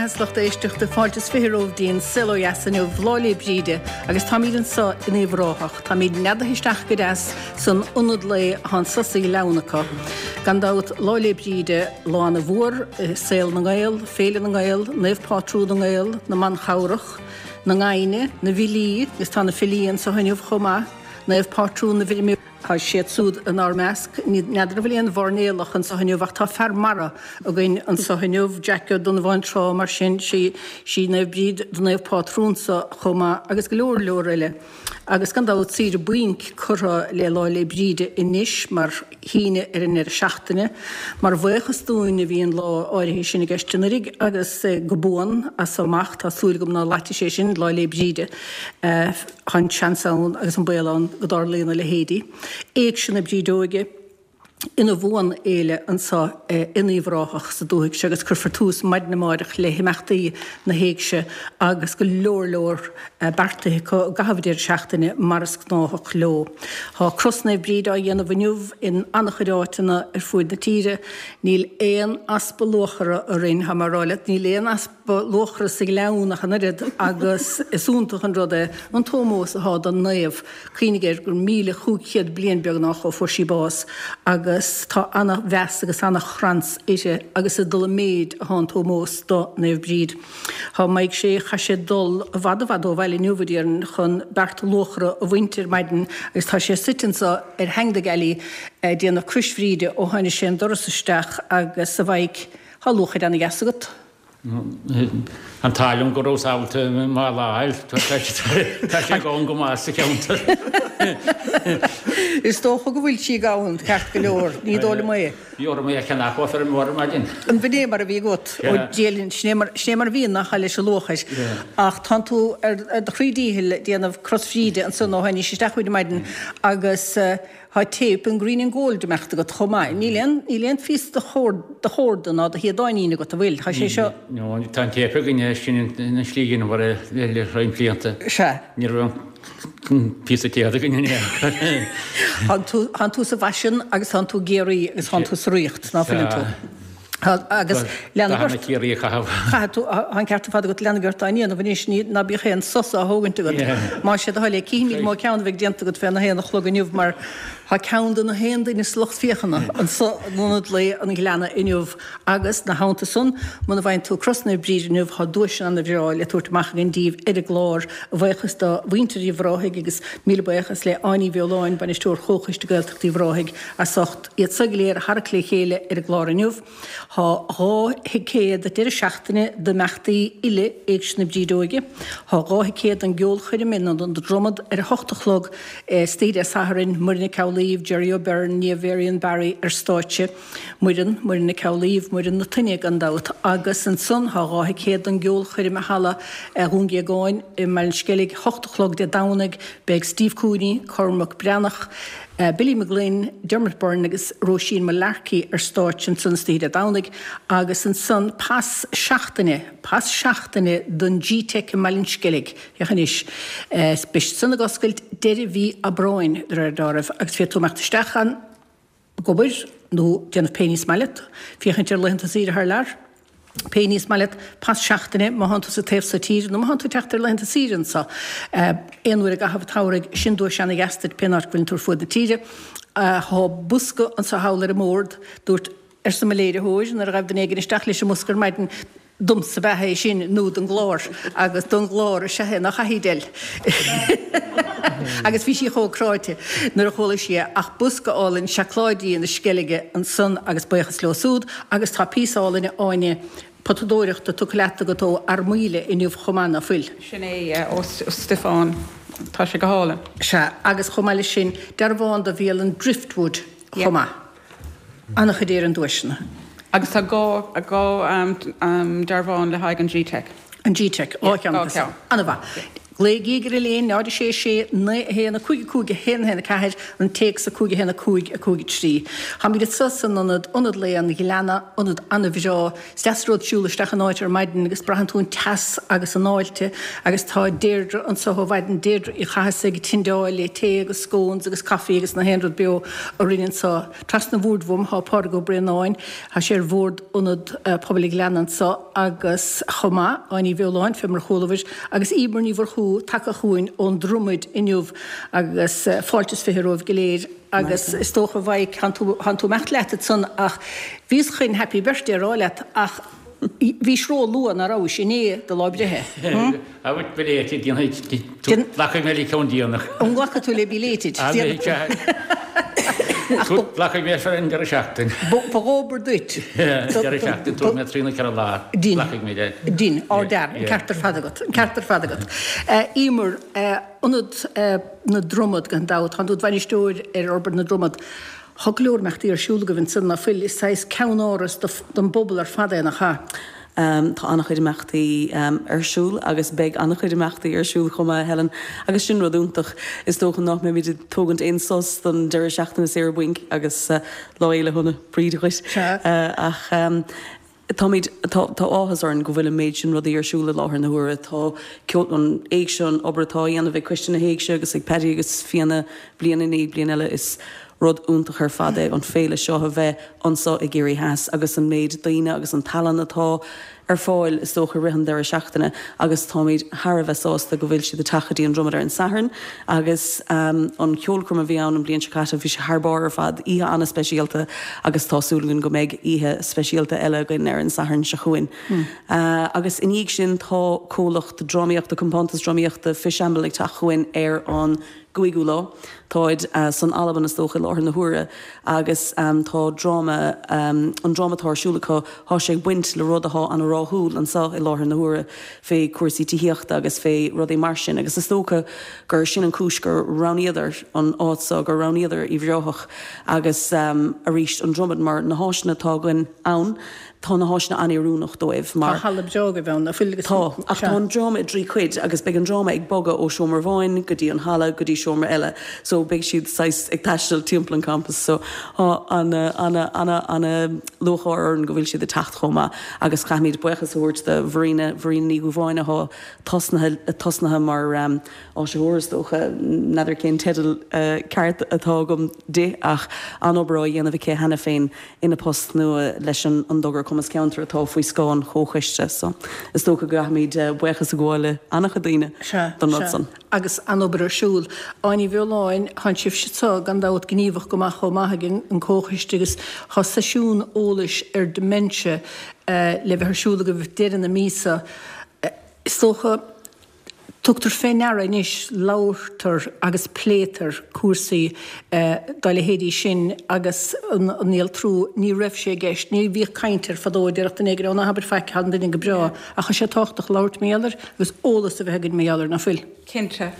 mbeatha is lucht éisteachta, fáilte is 20 romhaibh dtí'n Saol Ó Dheas inniu, Lá 'le Bríde, agus táimíd anso in Uíbh Ráthach. Táimíd neadaithe isteach go deas san ionad lae athá anso sa ghleann acu. Gan dabht, Lá 'le Bríde, lá ana mhór i saol na nGael, Féile na nGael, Naomh Pátrún na nGael, na mBanchabhrach, na nGaibhne, na bhfilí, agus tá na filí anso inniu chomh maith, Naomh Pátrún na bhfeirmeoirí. Tá siad súd inár measc. N'fheadar an bhfuil aon mhairnéalach anso inniu ach tá fear mara againn anso inniu, Jack Ó Donnabháin Trá, mar sin sí sí Naomh Bríd do naomh pátrúnsa chomh maith agus go leor leor eile. Agus gan dabht saoire bainc curtha le Lá 'le Bríde anois mar shíneadh ar an ndeireadh seachtaine. Mar bhuíochas dúinn a bhí an lá áirithe sin i gceist anuraidh agus go buan as so amach tá súil agam ná loitfidh sé sin Lá 'le Bríde. Tá an seans ann agus an baol ann go dtarlaíonn a leithéidí. Éigse na Brídeoige ina bhuanfhéile anso in Uíbh Ráthach sa dúthaigh seo agus cuirfear tús maidin amáireach le himeachtaí na héigse agus go leor leor beartaithe acu i gcaitheamh an deireadh seachtaine mar is gnáthach leo. Tá Cros Naomh Bríd á dhéanamh inniu in an-chuid áiteanna ar fuaid na tíre. Níl aon easpa luachra orainn, tá mé a rá leat, níl aon easpa. luachra sa ghleann ach an oiread agus is iontach an rud é an t-ómós athá don naomh. Cuimhnigh air gur 1,500 bliain beagnach ó fuair sí bás agus tá ana-mheas agus ana-thrans uirthi agus ag dul i méid athá an t-ómós do Naomh Bríd. Thá Mike Sé, chaith sé dul i bhfad i bhfad ó bhaile inniu a déarfainn chun beart luachra a bhaint ar maidin agus tá sé suite anso ar theanga na gealaí ag déanamh Crois Bhríde ó tháinig sé an doras isteach agus a Mhaidhc, thá luachair ana-dheas agat. An t-ádh liom go rabhas ábalta mála a fháil. Tá sé gann go maith sa cheantar. Is dócha go bhfuil sí gann, ceart go leor. Ní dóigh liom é. Bhí orm é a cheannach ó feirmeoir ar maidin. An b'in é mar a bhí agat? Ó Dia linn, sin é mar, sin é mar a bhíonn nach ea leis an luachair. Ach tánn tú ar do chroí díchill ag déanamh Cros Bhríde ansan ó tháinís isteach chugainn ar maidin agus Tá téip an Green and Gold imeachta agat chomh maith. Níl aon, níl aon phíosa de chord, de chorda ná de shíodáinín agat, an bhfuil? Tá sé seo. No, tá an téip againne, sin an slí a dheineamar é le roinnt blianta. Sea. Ní raibh aon phíosa téad againn in aon chor. Tánn tú, tánn tú sa bhfaisean agus tánn tú i gCiarraí agus tánn tú sa ríocht, ná fuileann tú? Sea. Agus leanfaidh ort. Dathanna Chiarraí a chaitheamh. Caithfidh tú, tá an ceart ar fad agat, leanfaidh ort á ndéanamh anois, ní, ná bíodh aon sos á thógaint agat. Más é do thoil é, cífimid mó ceann a bheidh déanta agat féna haon a chlog inniu mar tá ceann de na haon duine sa lucht féachana anso in Ionad Lae an Ghleanna inniu agus, 'na theannta san, muna bhfaigheann tú Cros Naomh Bríd inniu tá duaiseanna ana-bhreá le tabhairt amach againn díbh ar an gclár, a bhuíochas do mhuintir Uíbh Ráthaigh agus míle buíochas le Áine Ní Bheoláin, Bainisteoir Chomhchoiste Gaeltachta Uíbh Ráthaigh, as ucht. Iad so go léir a tharrac le chéile ar an gclár inniu. Tá 2 thicéad deireadh seachtaine d'imeachtaí uile Éigse na Brídeoige. Tá 2 thicéad don gceolchoirm in Ionad an Dromad ar a hocht a chlog istoíche Dé Sathairn, Muireann Nic Amhlaoibh, Jerry O'Beirne, Niamh Varian Barry ar stáitse. Muireann, Muireann Nic Amhlaoibh, Muireann na Toinne gan dabht. Agus ansan tá 2 thicéad don gceolchoirm i Halla Dhún Géagáin i mBaile an Sceilg, hocht a chlog Dé Domhnaigh. Beidh Steve Cooney, Cormac Breathnach, Billy McGlynn, Dermot Byrne agus Róisín Mullarkey ar stáitse ansan istoíche Dé Domhnaigh agus ansan pas seachtaine, pas seachtaine don G-Teic i mBaile an Sceilg, féach anois, beidh siad san ag oscailt deireadh mhí Aibreáin de réir dealraimh agus féadfaidh tú imeacht isteach ann ag obair nó déanamh pé ní is maith leat, féachaint ar laethanta saoire thar lear. Pé ní is maith leat, pas seachtaine má thánn tú sa taobh so tíre nó má thánn tú ag teacht ar laethanta saoire anso aon uair i gcaitheamh an tsamhraidh, sin duais ana-dheas duit pén áit go bhfuileann tú ar fuaid na tíre. Thá bosca anso thall ar an mbord, dúirt, arsa mo léiritheoir nuair a ghaibh duine éigin isteach leis an mbosca ar maidin, domsa ab ea é sin nó don gclár agus don gclár is ea é, nach ea a Edel? Agus bhí sí chomh cráite nuair a chuala sí é ach bosca álainn seacláidí na Sceilge ansan agus buíochas leo súd agus tá píosa álainn Áine potadóireachta tugtha leat agat ó Fhear Maoile inniu chomh maith, ná fuil? Sin é, ó Stiofán. Tá sé go hálainn. Sea, agus chomh maith leis sin, dearbhán do bhialann Driftwood chomh maith. An-chuid Éireann duaiseanna. Agus tá 2 dearbhán le haghaidh an G-Teic. An G-Teic, 2 cheann acu. An-mhaith. Glaoigí ar an líne 0 6 6 9 1 5 5 1 1 4, an téacs 5 1 5 5 3. Táimid anso san ionad, Ionad Lae an Ghleanna, ionad an-bhreá. Is deas an rud siúl isteach in áit ar maidin agus braitheann tú an teas agus an fháilte agus tá Deirdre anso ó mhaidin, Deirdre Uí Chathasaigh ag tindeáil le tae agus scones agus coffee agus na haon rud beo orainn anso. Trasna an bhoird uaim tá Pádraig Ó Braonáin, tá sé ar bhord Ionad Pobail an Ghleanna anso agus chomh maith, Áine Ní Bheoláin, fé mar a chualabhair, agus Emer Ní Mhurchú tagtha chugainn ón Dromaid inniu agus fáilte is 20 romhaibh go léir agus is dócha a Mhaidhc, thánn tú, thánn tú imeacht leat ansan ach bhíos chun happy birthday a rá leat ach bhís ró-luath, ná rabhais, inné do lá breithe? Hm? Abair belated, déanfaidh tú, glacfaidh mé le ceann déanach. An nglacfaidh tú le belated? Glacfaidh mé ar an deireadh seachtain. Ba dhóbair duit. Deireadh seachtain, tabharfaidh mé trí nó 4 lá. Glacfaidh mé le. Din, ardfhear, an ceart ar fad agat, an ceart ar fad agat. Emer, Ionad na Dromad gan dabht, tánn tú id bhainisteoir ar Fhorbairt na Dromad. Tá go leor imeachtaí ar siúl agaibh ansan, ná fuil? Is saghas ceannáras don bpobal ar fad é, nach ea? Tá an-chuid imeachtaí ar siúl agus beidh an-chuid imeachtaí ar siúl chomh maith, Helen, agus sin rud iontach. Is dócha nach mbeimid ag tógaint aon sos don deireadh seachtaine saoire bainc agus Lá Fhéile Shona Bríde dhuit. Ach táimid, tá áthas orainn go bhfuil an méid sin rudaí ar siúl i láthair na huaire. Tá ceol, an Éigse, an obair atá á dhéanamh ag Coiste na hÉigse agus ag Paddy agus Fianna bliain i ndiaidh bliain eile, is rud iontach ar fad é an féile seo a bheith anso i gCiarraí Theas agus an méid daoine agus an tallann atá ar fáil is dócha i rith an deireadh seachtaine agus táimid thar a bheith sásta go bhfuil siad ag teacht go dtí an Dromad ar an Satharn agus an cheolchoirm a bhí ann an bhliain seo caite bhí sé thar barr ar fad, oíche an-speisialta agus tá súil againn go mbeidh oíche speisialta eile againn ar an Satharn seo chugainn. Agus i ndiaidh sin tá comhlacht drámaíochta, compántas drámaíochta Fishamble ag teacht chugainn ar an gcúigiú lá. Táid san Albain is dócha i láthair na huaire agus tá dráma, an dráma atá ar siúl acu, thá sé ag baint le rud athá ana-ráthúil anso i láthair na huaire fé cúrsaí tithíochta agus fé rudaí mar sin agus is dócha gur sin an cúis gur roghnaíodar an áit so, gur roghnaíodar Uíbh Ráthach agus arís an Dromad mar na háiseanna atá againn ann. Tá na háiseanna an-oiriúnach dóibh mar. Tá halla breá agaibh ann, nach bhfuil? Tá, ach tá an dráma i dtrí chuid agus beidh an dráma ag bogadh ó seomra amháin go dtí an halla go dtí seomra eile so beidh siad saghas ag taisteal timpeall an campus so tá ana ana ana ana lúcháir orainn go bhfuil siad ag teacht chomh maith agus caithfimid buíochas a thabhairt do Mharina, Mharina Ní Dhúbháin athá tosnaithe tosnaithe mar áisitheoir is dócha, n'fheadar cén teideal ceart atá agam di ach an-obair á dhéanamh aici cheana féin ina post nua leis an dtogra Cumas Ceantair atá faoi scáth an Chomhchoiste so is dócha go gcaithfimid buíochas a ghabháil le an-chuid daoine don rud san. Agus an-obair ar siúl. Áine Ní Bheoláin, Tánn sibhse anso gan dabht gníomhach go maith chomh maith ag an Comhchoiste agus tá seisiún eolais ar dementia le bheith ar siúl agaibh deireadh na míosa. Is dócha Tugtar fé ndeara anois, labhartar agus pléitear cúrsaí dá leithéidí sin agus an néaltrú, ní raibh sé i gceist, ní bhíodh caint air fadó, déarfadh duine éigin, ó ná habair faic, tá an duine go breá, ach tá sé tábhachtach labhairt mar gheall air agus eolas a bheith againn mar gheall air, ná fuil? Cinnte.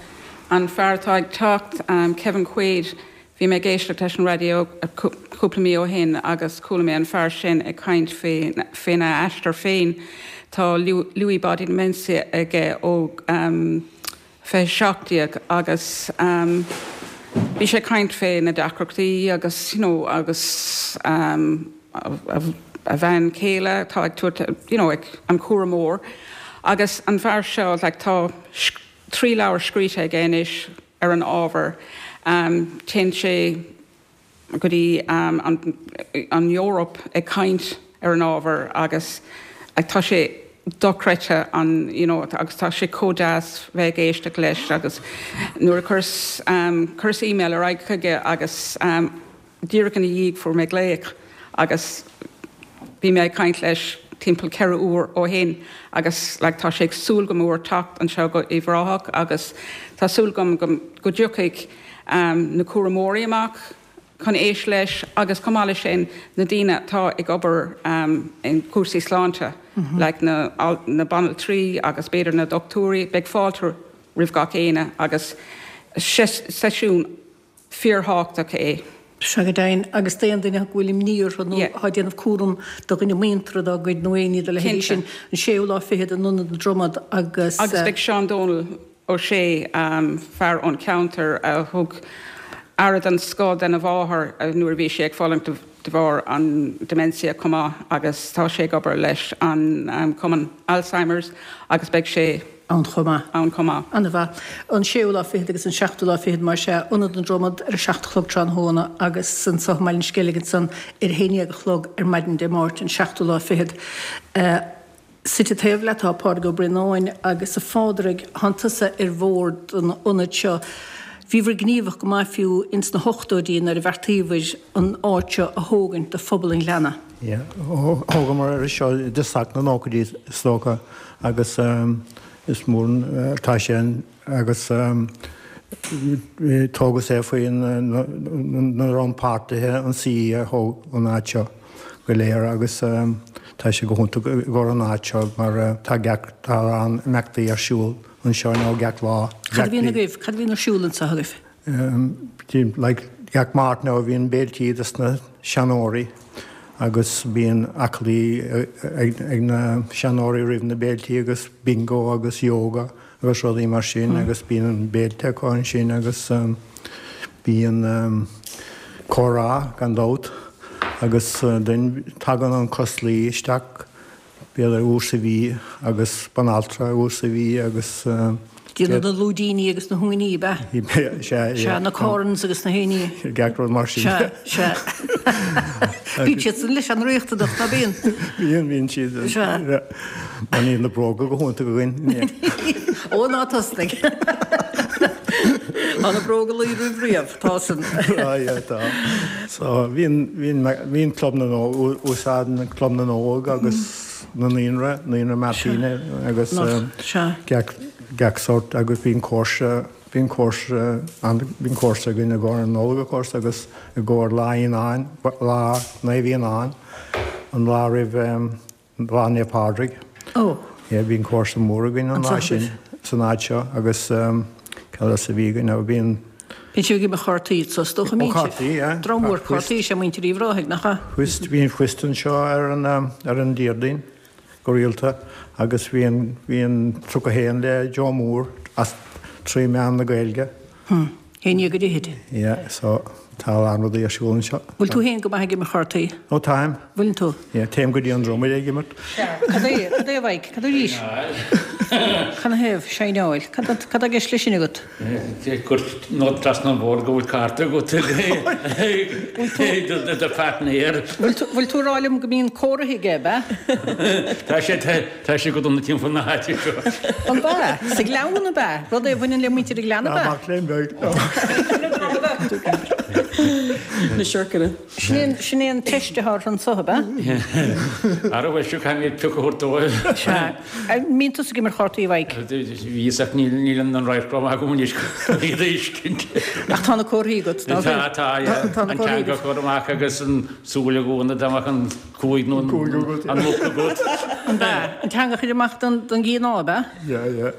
An fear atá ag teacht, Kevin Quaid, Bhí mé ag éisteacht leis an raidió cúpla mí ó shin agus chuala mé an fear sin ag caint faoina aistear féin. Tá Lewy Body Dementia aige ó 2017 agus bhí sé ag caint fé na deacrachtaí agus you know agus a bhean chéile atá ag tabhairt you know an cúramóir agus an fear seo like tá 3 leabhar scríte aige anois ar an ábhar. Téann sé go dtí an Eoraip ag caint ar an ábhar agus tá sé dochreidte an you know agus tá sé chomh deas bheith ag éisteacht leis agus nuair a chuireas chuireas email ar aghaidh chuige agus Díreach ina dhiaidh fuair mé glaoch agus bhí mé ag caint leis timpeall 4 uair ó shin agus like tá sé ag súil go mór teacht anseo go Uíbh Ráthach agus tá súil agam go go dtiocfaidh na cúramóirí amach chun éist leis agus chomh maith leis sin na daoine atá ag obair in cúrsaí sláinte like na na banaltraí agus b'fhéidir na dochtúirí beidh fáilte roimh gach éinne agus seisiún fíorthábhachtach é. Sea go deimhin, agus d'aon duine go bhfuil imní orthu nó atá ag déanamh cúram do dhuine muinteartha dá gcuid nó éinní dá leithéidí sin, an séú lá fichead in Ionad na Dromad agus. Agus beidh Seán Dónal. Ó Sé, fear ón cheantar a thug aire den scoth dena mháthair nuair a bhí sí ag fulaingt de bharr an dementia chomh maith agus tá sé ag obair leis an Cumann Alzheimer's agus beidh sé ann chomh maith. ann chomh maith. Ana-mhaith. An séú lá fichead agus an seachtú lá fichead mar sea, Ionad na Dromad ar a 7 a chlog tráthnóna agus anso i mBaile an Sceilg ansan ar a haon dhéag a chlog ar maidin Dé Máirt an seachtú lá fichead. Suite taobh leat tá Pádraig Ó Braonáin agus a Phádraig, thánn tusa ar bhord an ionaid seo. Bhíobhair gníomhach go maith fiú ins na hochtóidí nuair a bheartaíobhair an áit seo a thógaint do phobal an Ghleanna. Yeah, thógamar é seo i dtosach na nóchaidí is dócha agus is mór atá sé agus tógadh é faoi na rannpháirtithe an CE a thóg an áit seo go léir agus tá sé go hiontach i gcomhair an áit seo mar tá gach tá a lán imeachtaí ar siúl anseo nó gach lá. Cad a bhíonn agaibh? Cad a bhíonn ar siúl anseo agaibh? Like gach Máirt now bhíonn béiltí dos na seanóirí agus bíonn aclaí ag na seanóirí roimh na béiltí agus bingo agus yoga agus rudaí mar sin agus bíonn béilte acu ansin agus bíonn comhrá gan dabht agus then tagann an coslaí isteach b'fhéidir uair sa mhí agus banaltra uair sa mhí agus. Déanamh na lúidíní agus na huainí, ab ea? Sea, sea. Na corns agus na héiní. Gach rud mar sin. Sea, sea. Bíonn siad san leis an-riachtanach, ná bíonn? Bíonn, bíonn siad. Sea. Mar níl na bróga go hiontach againn. Ó, ná tosnaigh. Tá na bróga luí roimh riamh, tá san. Á, yeah, tá. So, bíonn, bíonn, bíonn Club na nÓg, úsáideann Club na nÓg agus na Naíonra, Naíonra Martina agus gach, gach sórt agus bíonn cúrsa, bíonn cúrsa, bíonn cúrsa againn i gcomhair an Nollag of course agus i gcomhair Lá Fhíonáin, Lá Naomh Fhíonáin, an lá roimh Lá Naomh Pádraig. Ó. Yeah, bíonn cúrsa mór againn an lá sin san áit seo agus cad else a bhí againn now bíonn. Bíonn sibh ag imirt chártaí so is dócha, mbíonn sibh? Ó cártaí, yeah. Dream mór cártaí is ea muintir Uíbh Ráthaigh, nach ea? Whist, bíonn whist anseo ar an ar an Déardaoin go rialta agus bíonn bíonn 31 le Joe Mór as trí mheán na Gaeilge. Hm. Haon déag go fhichid. Yeah, so tá a lán rudaí ar siúl anseo. Bhfuil tú féin go maith ag imirt chártaí? Ó táim. Bhfuileann tú? Yeah, téim go dtí an Dromaid ag imirt. Sea. Cad é, cad é a Mhaidhc? Cad arís? Cad 'na thaobh? Seineáil. Cad, cad tá i gceist leis sin agat? Gur nod trasna an bhord go bhfuil cárta agat ag do pháirtnéir. Bhfuil tú, bhfuil tú ag rá liom go mbíonn comhartha aige, ab ea? Tá sé, Tá sé go dona timpeall na háite seo. An ea? Sa Ghleann ab ea? Rud é a bhaineann le muintir an Ghleanna ab ea? Mac léinn beag. Na siorcanna. Sin é an teist atá orthu anso, ab ea? Ara bhuel, seo caithfidh mé pioc a thabhairt dóibh. Sea. An mbíonn tusa ag imirt chártaí, a Mhaidhc? Bhíos ach níl an radharc rómhaith agam anois chun iad a fheiscint. Ach tá na comharthaí agat, ná fuil? Tá, tá, yeah. An teanga a chur amach agus an súil a dhúnadh dá mbeadh an Cúig nó an muc agat. An ea? An teanga a chur amach don gcianá, ab ea? Yeah, yeah.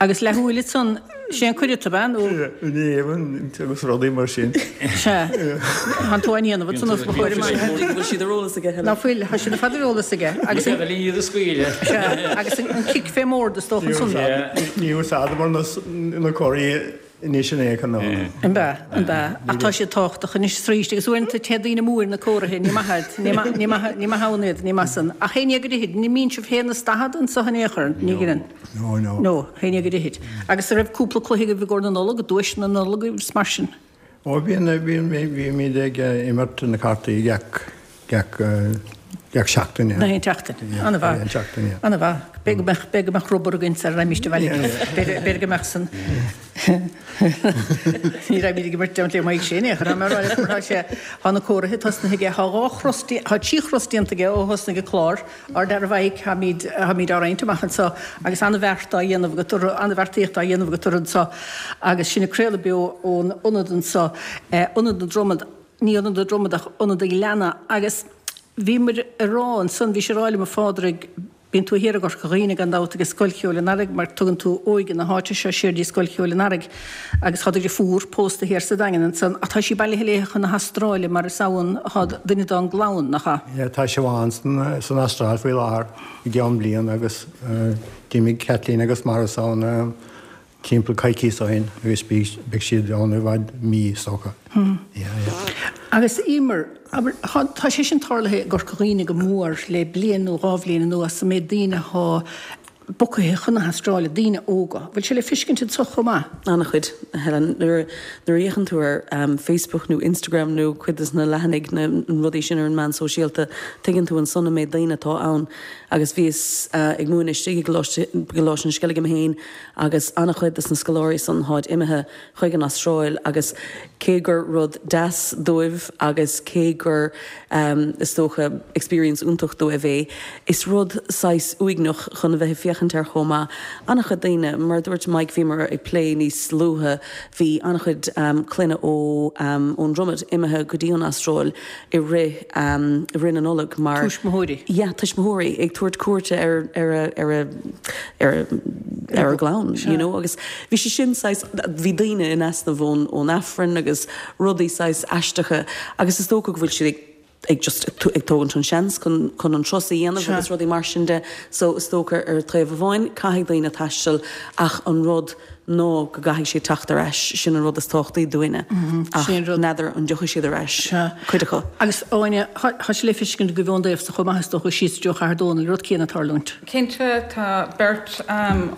Agus leathshúil ansan, sé an cuireadh, ab ea? Nó. Yeah, in éadan agus rudaí mar sin. Sea. Tá tú á ndéanamh ansan os mo chomhair amach. Go bhfuil siad ar eolas aige, Helen. Ná fuil, tá siad ar fad ar eolas aige. Agus an. Ní féidir iad a scaoileadh. Sea, agus an cic fé mbord is dócha ansan. Ní úsáideamar na comharthaí Anois in aon chor ná. An ea? An ea? Ach tá siad tábhachtach anois is arís agus uaireanta téann daoine amú ar na comharthaí, ní maith iad, ní maith, ní maith, ní maith ann iad, ní maith san. Ach haon déag go fhichid, ní mbíonn sibh haon is daichead anso in aon chor, ní ghineann. No, no. No, haon déag go fhichid. Agus an raibh cúpla cluiche agaibh i gcomhair na Nollag, duaiseanna na Nollag agus mar sin? Ó bhíonn, bhíonn, bhímid ag imirt na cártaí gach, gach, gach seachtain, yeah. Gach aon tseachtain. Yeah, An-mhaith. gach aon tseachtain, yeah. An-mhaith. B'fhéidir go mbeadh, b'fhéidir go mbeadh rubber againn sara raghaimíst abhaile. B'fhéidir, b'fhéidir go mbeadh san. Ní raghaimid ag imirt le Mike sin, é, chun mar tá sé, tá na comharthaí tosnaithe aige, tá dhá chros, tá trí chros déanta aige ó thosnaigh an clár, ár dara Mhaidhc, táimid, táimid á roinnt amach anseo agus an-bheart á dhéanamh agat orthu, an-bheartaíocht á dhéanamh agat orthu anseo agus sinn ag craoladh beo ón ionad anseo, Ionad na Dromad. ní Ionad na Dromad ach Ionad an Ghleanna agus bhíomar ag rá ansan, bhís ag rá liom a Phádraig, bíonn tú thiar i gCorca Dhuibhne gan dabht ag Scoil Cheoil an Earraigh mar tugann tú óige na háite seo siar dtí Scoil Cheoil an Earraigh agus tá do dhriofúr pósta thiar sa Daingean ansan ach tá sí bailithe léithe chun na hAstráile mar is ann atá duine dá gclann, nach ea? Yeah, tá Siobhán san san Astráil faoi láthair i gceann bliain agus d'imigh Kathleen agus Maurice ann. Timpeall coicíos ó shin agus beidh siad ann i bhfad mí is dócha. Yeah, yeah. Agus Emer, abair, tá sé sin tarlaithe i gCorca Dhuibhne go mór le bliain nó dhá bhliain anuas, an méid daoine athá bogtha chun na hAstráile, daoine óga. Bhfuil sé le fiscint anso chomh maith? An-chuid, a Helen. Nuair a fhéachann tú ar Facebook nó Instagram nó cuid de na leathanaigh, na rudaí sin ar an meán sóisialta, tuigeann tú ansan an méid daoine atá ann. Agus bhíos ag múineadh istigh i gColáiste an Sceilg mé féin agus an-chuid de na scoláirí san tháid imithe chuig an Astráil agus cé gur rud deas dóibh agus cé gur is dócha experience iontach dóibh é, is rud saghas uaigneach chun a bheith ag féachaint air chomh maith. An-chuid daoine, mar a dúirt Mike, bhíomar ag plé níos luaithe, bhí an-chuid clainne ó ón Dromad imithe go dtí an Astráil i rith i rith na Nollag mar. Tuismitheoirí. Yeah, tuismitheoirí ag tabhairt cuairte ar ar a ar a ar a ar a gclann, you know, agus bhí sé sin saghas, bhí daoine in easnamh ón ón Aifreann agus rudaí saghas aisteacha agus is dócha go bhfuil siad ag ag just ag tógaint an seans chun chun an turas a dhéanamh agus rudaí mar sin de so is dócha ar taobh amháin caithfidh daoine taisteal ach an rud ná go gcaithfidh siad teacht ar ais, sin an rud is tábhachtaí dúinne. Ach n'fheadar an dtiocfaidh siad ar ais, cuid acu. Agus Áine, tá sé le feiscint agaibh ón dtaobh so chomh maith is dócha, síos i dtreo Chathair Dónall, an rud céanna ag tarlúint. Cinnte, tá beirt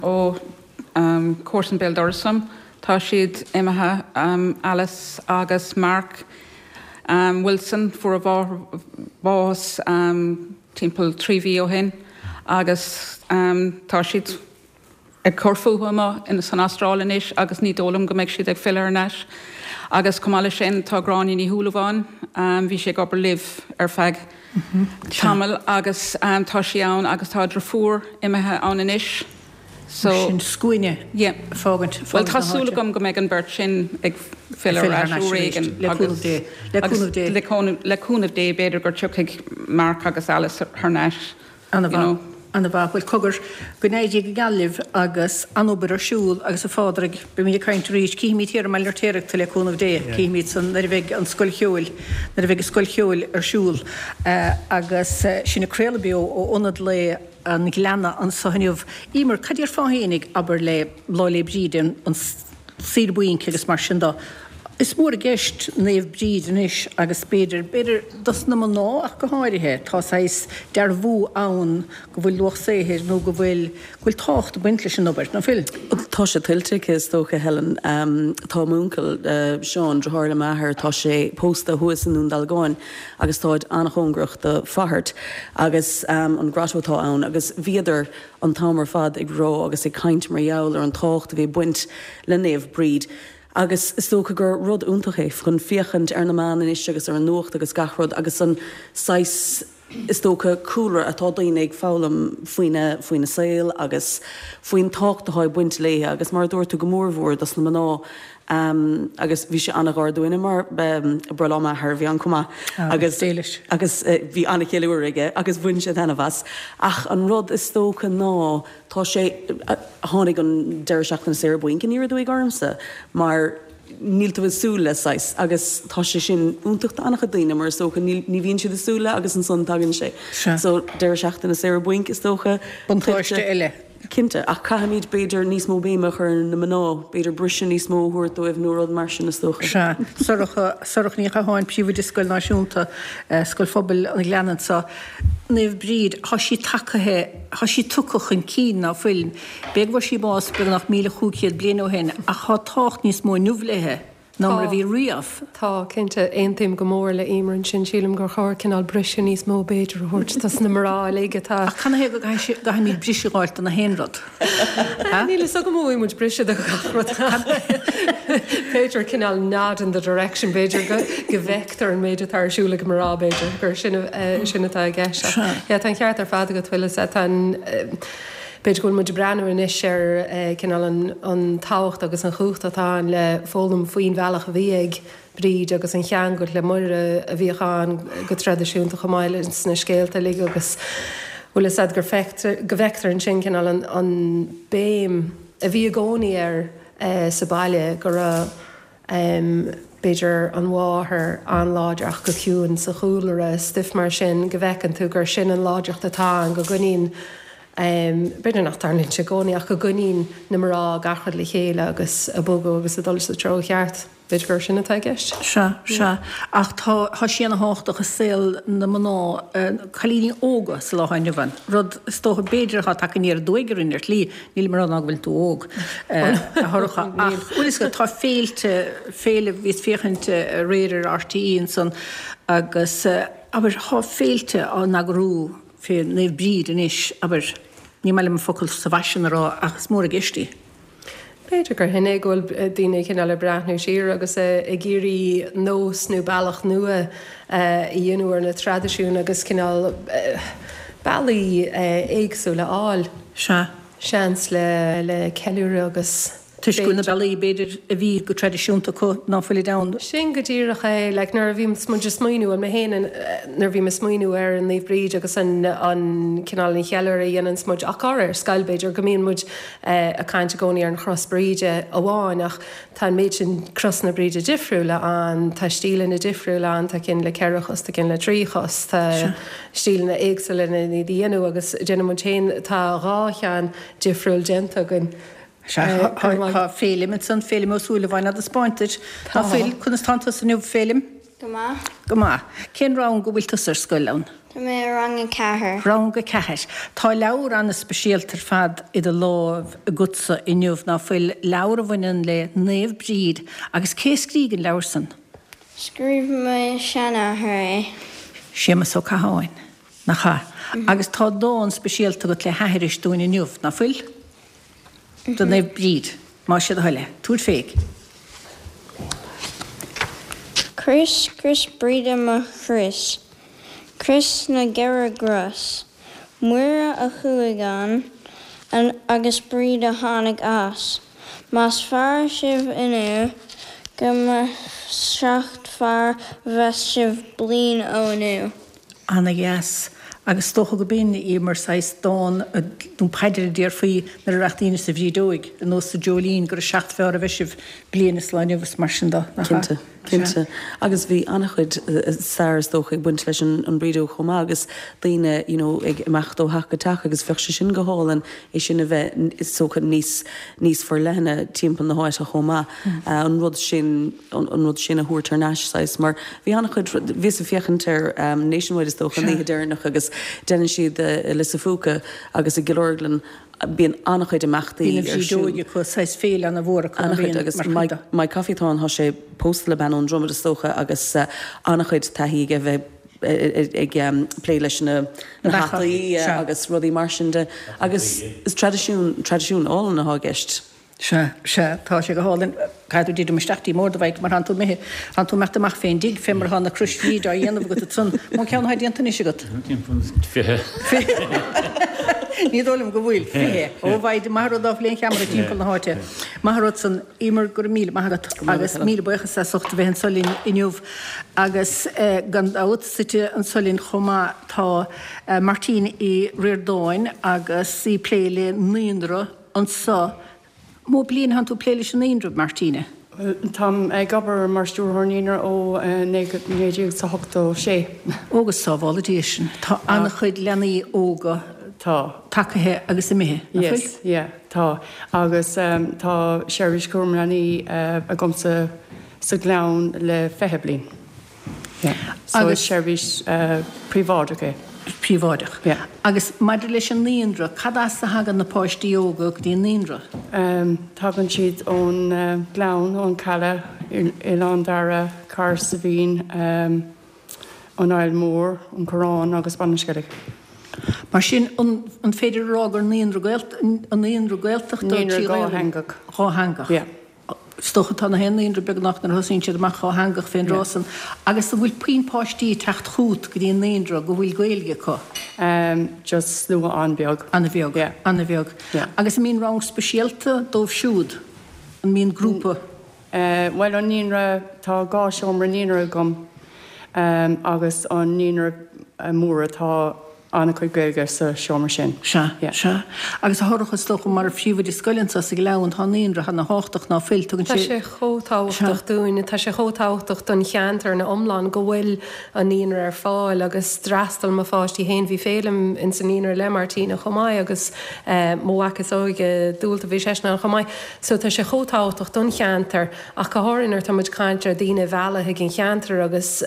ó comharsan béal dorais liom, tá siad imithe, Alice agus Mark Wilson, fuair a mháthair bás timpeall 3 mhí ó shin agus tá siad ag cur fúthu amuigh san Astráil anois agus ní dóigh liom go mbeidh siad ag filleadh thar n-ais. Agus chomh maith leis sin tá Gráinne Ní Shúilleabháin, bhí sí ag obair libh ar feadh tamaill agus tá sí ann agus tá a driofúr imithe ann anois so. Sin scuaine yeah. fágaint, Bhuel tá súil agam go mbeidh an bheirt sin ag filleadh ar ais uair éigin le cúnamh Dé, le cúnamh Dé. Le cúnamh Dé b'fhéidir gur tiocfaidh Mark agus Alice thar n-ais. Ana-mhaith. Ana-mhaith. Bhuel, cogar, go n-éirí go geal libh agus an-obair ar siúl agus a Phádraig, beimid ag caint arís, cífimid thiar i mBaile an Fheirtéaraigh tú le cúnamh Dé, cífimid san nuair a bheidh an scoil cheoil, nuair a bheidh an scoil cheoil ar siúl. Agus sinn ag craoladh beo ó Ionad Lae an Ghleanna anso inniu. Emer, cad déarfá fhéinig, abair, le Lá 'le Bríde, an saoire bainc agus mar sin do. Is mór i gceist Naomh Bríd anois agus b'fhéidir, b'fhéidir dos na mná ach go háirithe, tá saghas dearbhú ann go bhfuil luach saothair nó go bhfuil, go bhfuil tábhacht ag baint leis an obair, ná fuil? Tá sé tuillte aici is dócha, Helen. Tá m'uncail, Seán, driotháir le m'athair, tá sé pósta thuas i nDún Dealgáin agus táid an-chóngarach do Fáthart agus an grotto atá ann agus bhíodar an t-am ar fad ag rá agus ag caint mar gheall ar an tábhacht a bhí ag baint le Naomh Bríd agus is dócha gur rud iontach é chun féachaint ar na meáin anois agus ar an nuacht agus gach rud agus an saghas is dócha cúlra atá daoine ag foghlaim faoina faoina saol agus faoin tábhacht atá ag baint léi agus mar a dúirt tú go mór mhór dos na mná agus bhí sé an-ghar dúinne mar breithlá m'athar a bhí ann chomh maith agus agus bhí an-cheiliúradh aige agus bhain sé taitneamh as. Ach an rud is dócha ná tá sé, tháinig an deireadh seachtaine saoire bainc aniar aduaidh ormsa mar níl tú ag súil le saghas agus tá sé sin iontach d'an-chuid daoine mar is dócha ní bhíonn siad ag súil le agus ansan tagann sé. So deireadh seachtaine saoire bainc is dócha. Buntáiste eile. Cinnte, ach caithfimid, b'fhéidir, níos mó béime a chur ar na mná, b'fhéidir briseadh níos mó a thabhairt dóibh nó rud mar sin, is dócha. Sea. Sorcha, Sorcha Ní Chatháin, Príomhoide Scoil Náisiúnta, Scoil Phobail an Ghleanna anseo. Naomh Bríd, thá sí tacaithe, thá sí tugtha chun cinn, ná fuil? B'fhéidir go bhfuair sí bás beagnach 1,500 bliain ó shin, ach thá tábhacht níos mó inniu léithe. ná mar a bhí riamh. Tá, cinnte. Aontaím go mór le Emer ansin. Sílim gur chóir cineál briseadh níos mó b'fhéidir a thabhairt dos na mná uilig atá. Ach canathaobh go gcaithfimid briseadh a dh'fháilt do na haon rud? Níl fhios agam an bhfaighidh muid briseadh do gach rud ach b'fhéidir cineál nod in the direction, b'fhéidir go bhfeictear an méid atá ar siúl ag mná b'fhéidir gur sin sin atá i gceist. Ach yeah, tá an ceart ar fad agat, bhfuil fhios a'd, tá an. B'fhéidir go bhfuil muid ag breathnú anois ar cineál an tábhacht agus an chumhacht atá ann le foghlaim faoin bhealach a bhí ag Bríd agus an cheangal le Muire a bhíodh ann go traidisiúnta chomh maith leis na scéalta uilig agus bhfuil fhios a'd gur feictear, go bhfeictear ansin cineál an béim a bhí i gcónaí air sa baile go raibh b'fhéidir an mháthair an-láidir ach go ciúin sa chúlra, stuif mar sin, go bhfeiceann tú gur sin an láidreacht atá ann, go gcoinníonn. B'fhéidir nach dtarlaíonn sé i gcónaí ach go gcoinníonn na mná gach rud le chéile agus ag bogadh agus ag dul sa treo cheart. B'fhéidir gur sin atá i gceist. Sea, sea. Ach tá, tá sí ana thábhachtach i saol na mná, cailíní óga sa lá atá inniu ann. Rud, is dócha, b'fhéidir atá tagtha aniar aduaidh orainn ar shlí, nílim ag rá ná go bhfuil tú óg, a Shorcha, ach, bhfuil fhios agat, tá féilte, féile, bhíos féachaint aréir ar RTÉ ansan agus, abair, tá féilte á n-eagrú fé Naomh Bríd anois, abair, ní maith liom an focal sa bhfaisean a rá ach is mór i gceist í. B'fhéidir gur shin é go bhfuil daoine cineál ag breathnú siar agus ag iarraidh nós nó bealach nua a dhéanamh ar na traidisiúin agus cineál bealaí éagsúla a fháil. Sea. Seans le ceiliúradh agus. Toisc go bhfuil na bealaí, b'fhéidir, a bhí go traidisiúnta acu ná fuilid ann. Sin go díreach é. Like, nuair a bhíonns muid ag smaoineamh, bhuel mé féin, nuair a bhím ag smaoineamh ar an Naomh Bríd agus an, an cineál an cheiliúradh a dhéananns muid, ach go háirithe ar scoil b'fhéidir, go mbíonn muid ag caint i gcónaí ar an chros Bríde amháin ach tá an méid sin crosanna Bríde difriúla ann, tá stíleanna difriúla ann, tá cinn le ceithre chos, tá cinn le trí chos, tá stíleanna éagsúla lena iad a dhéanamh agus déanann muid féin, tá dhá cheann difriúil déanta againn. Sea, tá Féilim ansan, Féilim Ó Súilleabháin á dtaispeáint duit. Tá fuil, conas tánn tusa inniu, Féilim? Go maith. Go maith. Cén rang go bhfuil tusa ar scoil ann? Tá mé i rang a ceathair. Rang a ceathair. Tá leabhar an-speisialta ar fad i do láimh agatsa inniu, ná fuil? Leabhar a bhaineann le Naomh Bríd. Agus cé a scrígh an leabhar san? Scríobh mo sheanathair é. Séamus Ó Catháin, nach ea? Agus tá dán speisialta agat le haithris dúinn inniu, ná fuil? Do Naomh Bríd, más sé do thoil é. Tabhair fé. Crios, crios Bríde mo chrios, Crios na gceithre gcros. Muire a chuaigh ann agus Bríd a tháinig as. Más fearr sibh inniu go mba seacht fearr a bheas sibh bliain ó inniu. Ana dheas. Agus is dócha go b'in í mar saghas dán nó paidir a déarfaí nuair a rachadh daoine sa bhrídeoig, ar nós sa Dreoilín, gura seacht fearr a bheidh sibh bliain is lá inniu is mar sin de, nach ea? Cinnte, cinnte. Agus bhí an-chuid stair is dócha ag baint leis an bhrídeog chomh maith agus daoine you know ag imeacht ó theach go teach agus bheadh sé sin go hálainn é sin a bheith is dócha níos níos forleithne timpeall na háite chomh maith. An rud sin. an rud sin a thabhairt thar n-ais, saghas, mar bhí an-chuid, bhíos ag féachaint ar Nationwide is dócha an oíche deireanach agus déanann siad i Lios a' Phúca agus i gCill Orglan, bíonn an-chuid imeachtaí Bíonn an ar siúl. bhrídeoig acu, saghas féile an-mhór acu, ná An-chuid bíonn, agus mar chuid Mike, de. Mike Coffey atá ann, tá sé pósta le bean ón Dromad is dócha agus an-chuid taithí aige bheith ag plé leis na Na beacha, hataí sea. agus rudaí mar sin de agus is traidisiún, traidisiún álainn atá i gceist. Sea, sea, tá sé go hálainn. Caithfidh tú titim isteach dtí m'ord, a Mhaidhc, mar thánn tú imithe, thánn tú imeacht amach fén dtigh, fé mar atá na crois Bhríde á dhéanamh agat ansan. Mó ceann atá déanta anois agat? Timpeall 20. 20? Ní dóigh liom go bhfuil. 20. Ó, a Mhaidhc, maith an rud ná fuil aon cheamara timpeall na háite. Maith an rud san. Emer, go raibh míle maith agat agus míle buíochas as ucht a bheith anso linn inniu. Agus gan dabht, suite anso linn chomh maith tá Martine Uí Ríordáin agus í ag plé le naíonra, Anso, mó bliain thánn tú ag plé leis an naíonra, Martina? Táim ag obair mar stiúrthóir naíonra ó 1986. Ó go sábhála Dia sinn. Tá an-chuid leanaí óga Tá. tagaithe agus imithe, nach bhfuil? Yes, yeah, tá. Agus tá seirbhís cúram leanaí agamsa sa Ghleann le 20 bliain. So is seirbhís príobháideach é. Príobháideach. Yeah. Agus maidir leis an naíonra, cad as a thagann na páistí óga go dtí an naíonra? Tagann siad ón Ghleann, ón Chaladh, Oileán Dara, Cahersiveen, an Aill Mhór, an Coireán agus Baile an Sceilg. Mar sin, an féidir a rá gur naíonra naíonra Gaeltachta Naíonra dhátheangach. Dhátheangach. Yeah. Is dócha tá na haon naíonra beagnach nuair a thosaíonn siad amach dhátheangach fén dtráth san. Agus an bhfuil puinn páistí ag teacht chút go dtí an naíonra go bhfuil Gaeilge acu? Just slua an-bheag. An-bheag. Yeah. An-bheag. Yeah. Agus an mbíonn rang speisialta dóibh siúd? An mbíonn grúpa? Bhuel an naíonra, tá dhá seomra naíonra agam agus an naíonra mór atá. An-chuid Gaeilge sa seomra sin. Sea, sea. Agus a Shorcha, is dócha, mar phríomhoide scoile anseo sa Ghleann, tá an naíonra ana thábhachtach ná fuil? Tugann sé. Tá sé chomh tábhachtach dúinn, tá sé chomh tábhachtach don cheantar ina iomlán go bhfuil an naíonra ar fáil agus d'fhreastail mo pháistí féin, bhí Féilim ins an naíonra le Martina chomh maith agus mo mhac is óige, Dualta, bhí seisean ann chomh maith. So tá sé chomh tábhachtach don cheantar ach go háirithe nuair atá muid ag caint ar daoine a mhealladh chuig an cheantar agus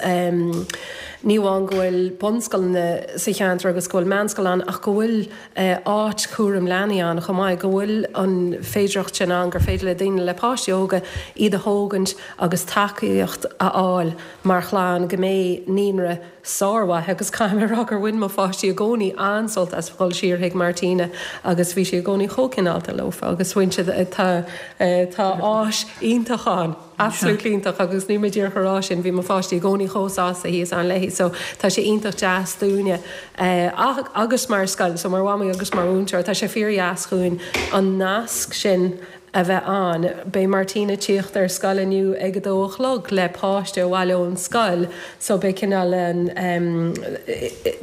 ní amháin go bhfuil bunscoileanna sa cheantar agus go bhfuil meánscoil ann ach go bhfuil áit chúram leanaí ann chomh maith, go bhfuil an féidireacht sin ann gur féidir le daoine le páistí óga iad a thógaint agus tacaíocht a fháil mar chlann go mbeidh naíonra sármhaith agus caithfidh mé a rá gur bhain mo pháistí i gcónaí an-sult as dhul siar chuig Martina agus bhí sí i gcónaí chomh cineálta leofa agus bhain siad tá tá áis iontach ann, absolutely iontach agus níl mé díreach a rá sin, bhí mo pháistí i gcónaí chomh sásta thíos ann léi so tá sé iontach deas dúinne agus mar scoil so mar mhamaí agus mar mhúinteoir tá sé fíordheas dhúinn an nasc sin a bheith ann. Beidh Martina ag tíocht ar scoil inniu ag a dó a chlog le páiste abhaile ón scoil so beidh cineál an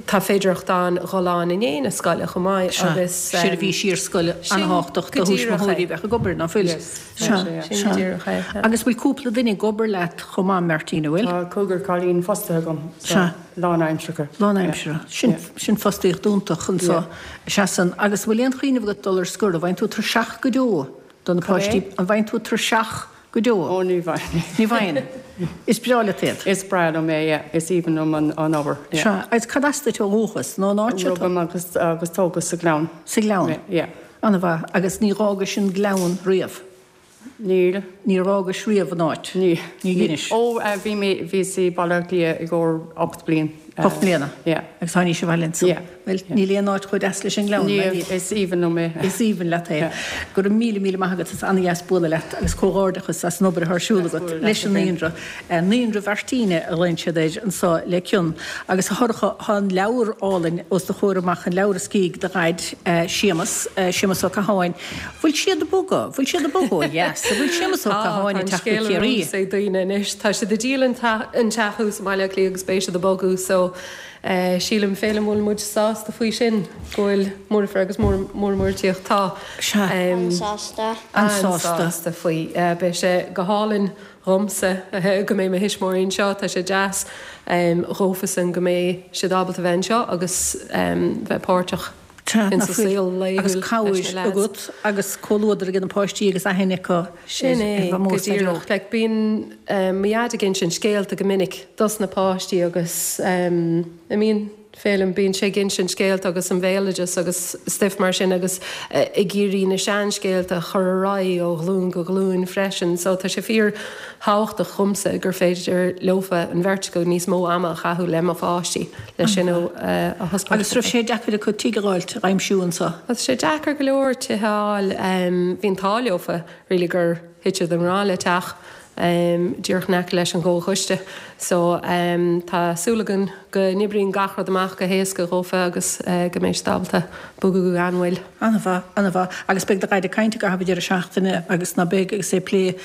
tá féidireacht ann dhul ann i ndiaidh na scoile chomh maith agus. Seirbhís iarscoile an-thábhachtach do thuismitheoirí a bheadh ag obair, ná fuil? Sea, sin go díreach é. Agus bhfuil cúpla duine ag obair leat chomh maith, Martina, bhfuil? Tá cúigear cailín fostaithe agam so lánaimseartha. Lánaimseartha. Sin sin fostaíocht iontach anso. Seasann. Agus an bhfuil aon chuimhneamh agat dul ar scor? An bhfaigheann tú tuirseach go deo do na páistí? An bhfaigheann tú tuirseach go deo? Ó, ní bhfaigheann. Ní bhfaigheann. Is breá leat iad. Is breá liom é, yeah. Is aoibhinn liom an obair, yeah. Sea. Agus cad as duit ó dhúchas? Nó an áit seo? Rugadh mé agus agus tógadh sa Ghleann. Sa Ghleann? Yeah. An-mhaith. Agus ní dh'fhágais an Gleann riamh? Níl. Níor fhágais riamh an áit? Ní. Ní dheinis. Ó, bhí mé, bhíos i Baile Átha Cliath i gcomhair 8 bliain. 8 mbliana? Yeah. Agus tháinís abhaile ansan? Yeah. Bhuel, níl aon áit chomh deas leis an nGleann, Níl, is aoibhinn liom é. Is aoibhinn leat é. Yeah. Go raibh míle, míle maith agat, is an-dheas bualadh leat agus comhghairdeachas as an obair atá ar siúl agat leis an naíonra. Naíonra Mhartina a ghlaonn siad air anso le cion. Agus a Shorcha, tá an leabhar álainn os do chomhair amach, an leabhar a scrígh do dhaid, Séamus, Séamus Ó Catháin. Bhfuil siad ag bogadh? Bhfuil siad ag bogadh ó dheas? An bhfuil Séamus Ó Tá, Catháin tá ag an teacht go scéal Ciarraí? ar eolas ag daoine anois. Tá siad ag díol an teach thuas i mBaile Átha Cliath agus beidh siad ag bogadh so sílim, Féilim, bhfuil muid sásta faoi sin, go bhfuil Muirfear agus Muir ag tíocht. Tá. Sea. An-sásta. An-sásta faoi. Beidh sé go hálainn dhomsa go mbeidh mo thuismitheoirí anseo. Tá sé deas dhófasan go mbeidh siad ábalta bheith anseo agus bheith páirteach Sea, insa saol laethúil agus leis na cabhair lads. agat agus comhluadar ag na páistí agus aithne acu ar Sin é, ar go Mhamó is Daideo. díreach. Like, bíonn mo dhaid ag insint scéalta go minic dos na páistí agus an mbíonn, Féilim, bíonn sé ag insint scéalta agus an bhéaloideas agus stuif mar sin agus ag iarraidh na seanscéalta a chur ar aghaidh ó ghlúin go glúin freisin. So tá sé fíor thábhachtach dhomsa gur féidir leofa, an bheirt acu, níos mó ama a chaitheamh le mo pháistí, le sin a thaispeáint. Agus raibh sé deacair acu tigh a dh'fháilt, a dh'aimsiú anso? Tá sé deacair go leor tithe a fháil. Bhí an t-ádh leofa really gur thit siad i ngrá le teach díreach in aice leis an gComhchoiste. So tá súil againn go n-oibríonn gach rud amach go héasca dhófa agus go mbeidh siad ábalta bogadh gan mhoill. An-mhaith, an-mhaith. Agus beidh do dhaid ag caint i gcaitheamh an deireadh seachtaine agus ná beidh agus é ag plé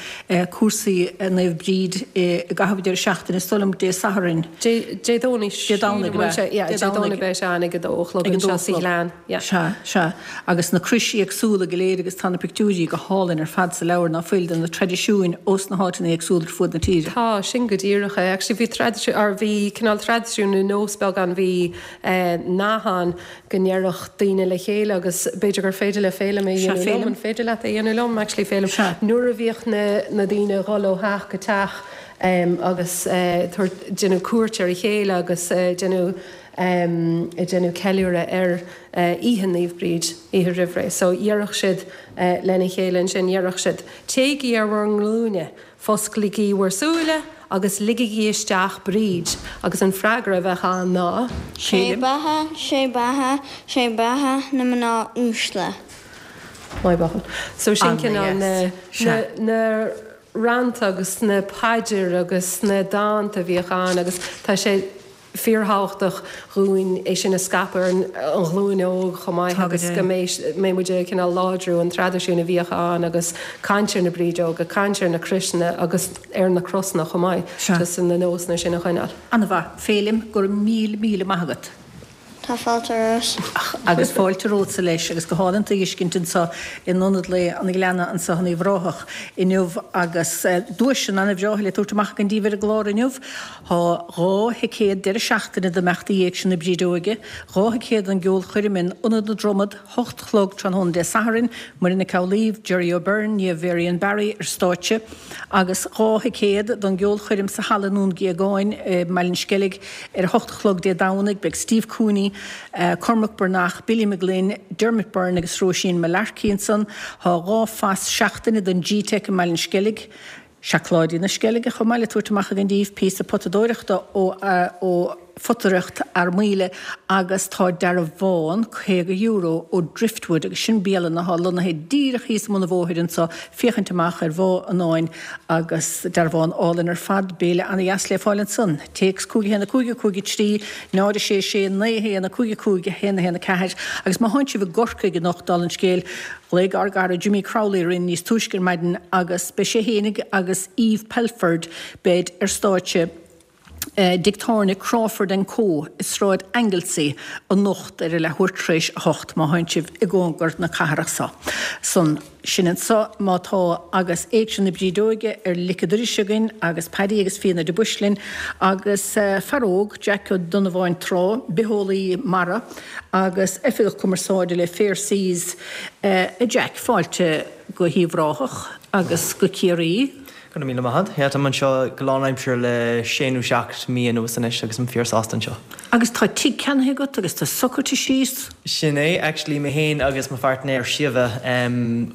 cúrsaí Naomh Bríd i gcaitheamh an deireadh seachtaine, is dóigh liom Dé Sathairn. Dé Dé Domhnaigh Dé Domhnaigh, sílim, ab ea? Yeah, Dé Dé Domhnaigh Domhnaigh. beidh sé ann ag a dó a chlog Ag a dó anseo a sa chlog. Ghleann, yeah. Sea, sea. Agus na crois éagsúla go léir agus tá na pictiúirí go hálainn ar fad sa leabhar ná fuil de na traidisiúin ós na háiteanna éagsúla ar fuaid na tíre. Tá, sin go díreach é. Actually bhí traidisiún, or bhí cineál traidisiún nó nós beag ann, bhí eh nath ann go ndéarfadh daoine le chéile agus b'fhéidir gur féidir le Féilim é Sea, dhéanamh liom, Féilim. an féidir leat é dhéanamh liom actually Féilim? Sea. Nuair a bhíodh na na daoine ag dhul ó theach go teach em agus eh tabhairt, déanamh cuairt ar a chéile agus eh déanamh em ag déanamh ceiliúradh ar eh oíche Naomh Bríd, oíche roimhré. So dhéarfadh siad eh lena chéile ansin, dhéarfadh siad, téigí ar bhur nglúine, Fosclaigí bhur súile agus ligigí isteach Bríd agus an freagra a bheadh ann ná. Sé beatha, sé beatha, sé beatha na mná uaisle. Maith buachaill. So sin cineál na, na, na rannta agus na paidir agus na dánta a bhíodh ann agus tá sé, fíorthábhachtach dhúinn é sin a scaipeadh ar an ghlúin óg chomh maith agus go mbeidh muid ag cineál láidriú an traidisiún a bhíodh ann agus caint ar na brídeoga, caint ar na croiseanna agus ar na crosanna chomh maith, just na nósanna sin a choinneáil. An-mhaith. Féilim, go raibh míle míle maith agat. Tá fáilte romhat. Agus fáilte romhatsa leis agus go hálainn tú a fheiscint anseo in Ionad Lae an Ghleanna anseo in Uíbh Ráthach inniu agus duaiseanna ana-bhreátha le tabhairt amach againn daoibh ar an gclár inniu. Tá 2 thicéad deireadh seachtaine d'imeachtaí Éigse na Brídeoige, 2 thicéad don gceolchoirm in Ionad na Dromad, 8 a chlog tráthnóna Dé Sathairn, Muireann Nic Amhlaoibh, Gerry O'Beirne, Niamh Varian Barry ar stáitse, agus 2 thicéad don gceolchoirm sa halla i nDún Géagáin i mBaile an Sceilg ar a hocht a chlog Dé Domhnaigh. Beidh Steve Cooney, Cormac Breathnach, Billy McGlynn, Dermot Byrne agus Róisín Mullarkey ansan. Tá 2 phas seachtaine don G-Teic i mBaile an Sceilg. Seacláidí na Sceilge chomh maith le tabhairt amach againn daoibh, píosa potadóireachta ó ó Photaireacht Fhear Maoile agus tá dearbhán €50 ó Driftwood agus sin bialann athá lonnaithe díreach thíos i mbun an bhóthair anso, féachaint amach ar Bhá an Fháin agus dearbhán álainn ar fad, béile ana-dheas le fáil ansan. Téacs 5 1 5 5 3 0 6 6 9 1 5 5 1 1 4 agus má thánn sibh i gCorcaigh anocht, dála an scéil, Ghlaoigh ár gcara Jimmy Crowley orainn níos túisce ar maidin agus beidh sé fhéinig agus Eve Pelford, beid ar stáitse i dtigh tábhairne Crawford and Co i Sráid Anglesey anocht ar a leathuair tar éis a hocht má thánn sibh i gcóngar na cathrach so. San sin anso má tá agus Éigse na Brídeoige ar lic an dorais againn agus Paddy agus Fíona de Buis linn agus fear óg, Jack Ó Donnabháin Trá, bitheolaí mara, agus Oifigeach Cumarsáide le Fair Seas, a Jack, fáilte go hUíbh Ráthach agus go Ciarraí. Go raibh míle maith agat. Yeah, táim anseo go lánaimseartha le sé nó seacht mí anuas anois agus I'm fíor sásta anseo. Agus tá tigh ceannaithe agat agus tá socraithe síos? Sin é. Actually, mé féin agus mo phairtnéir Síomha,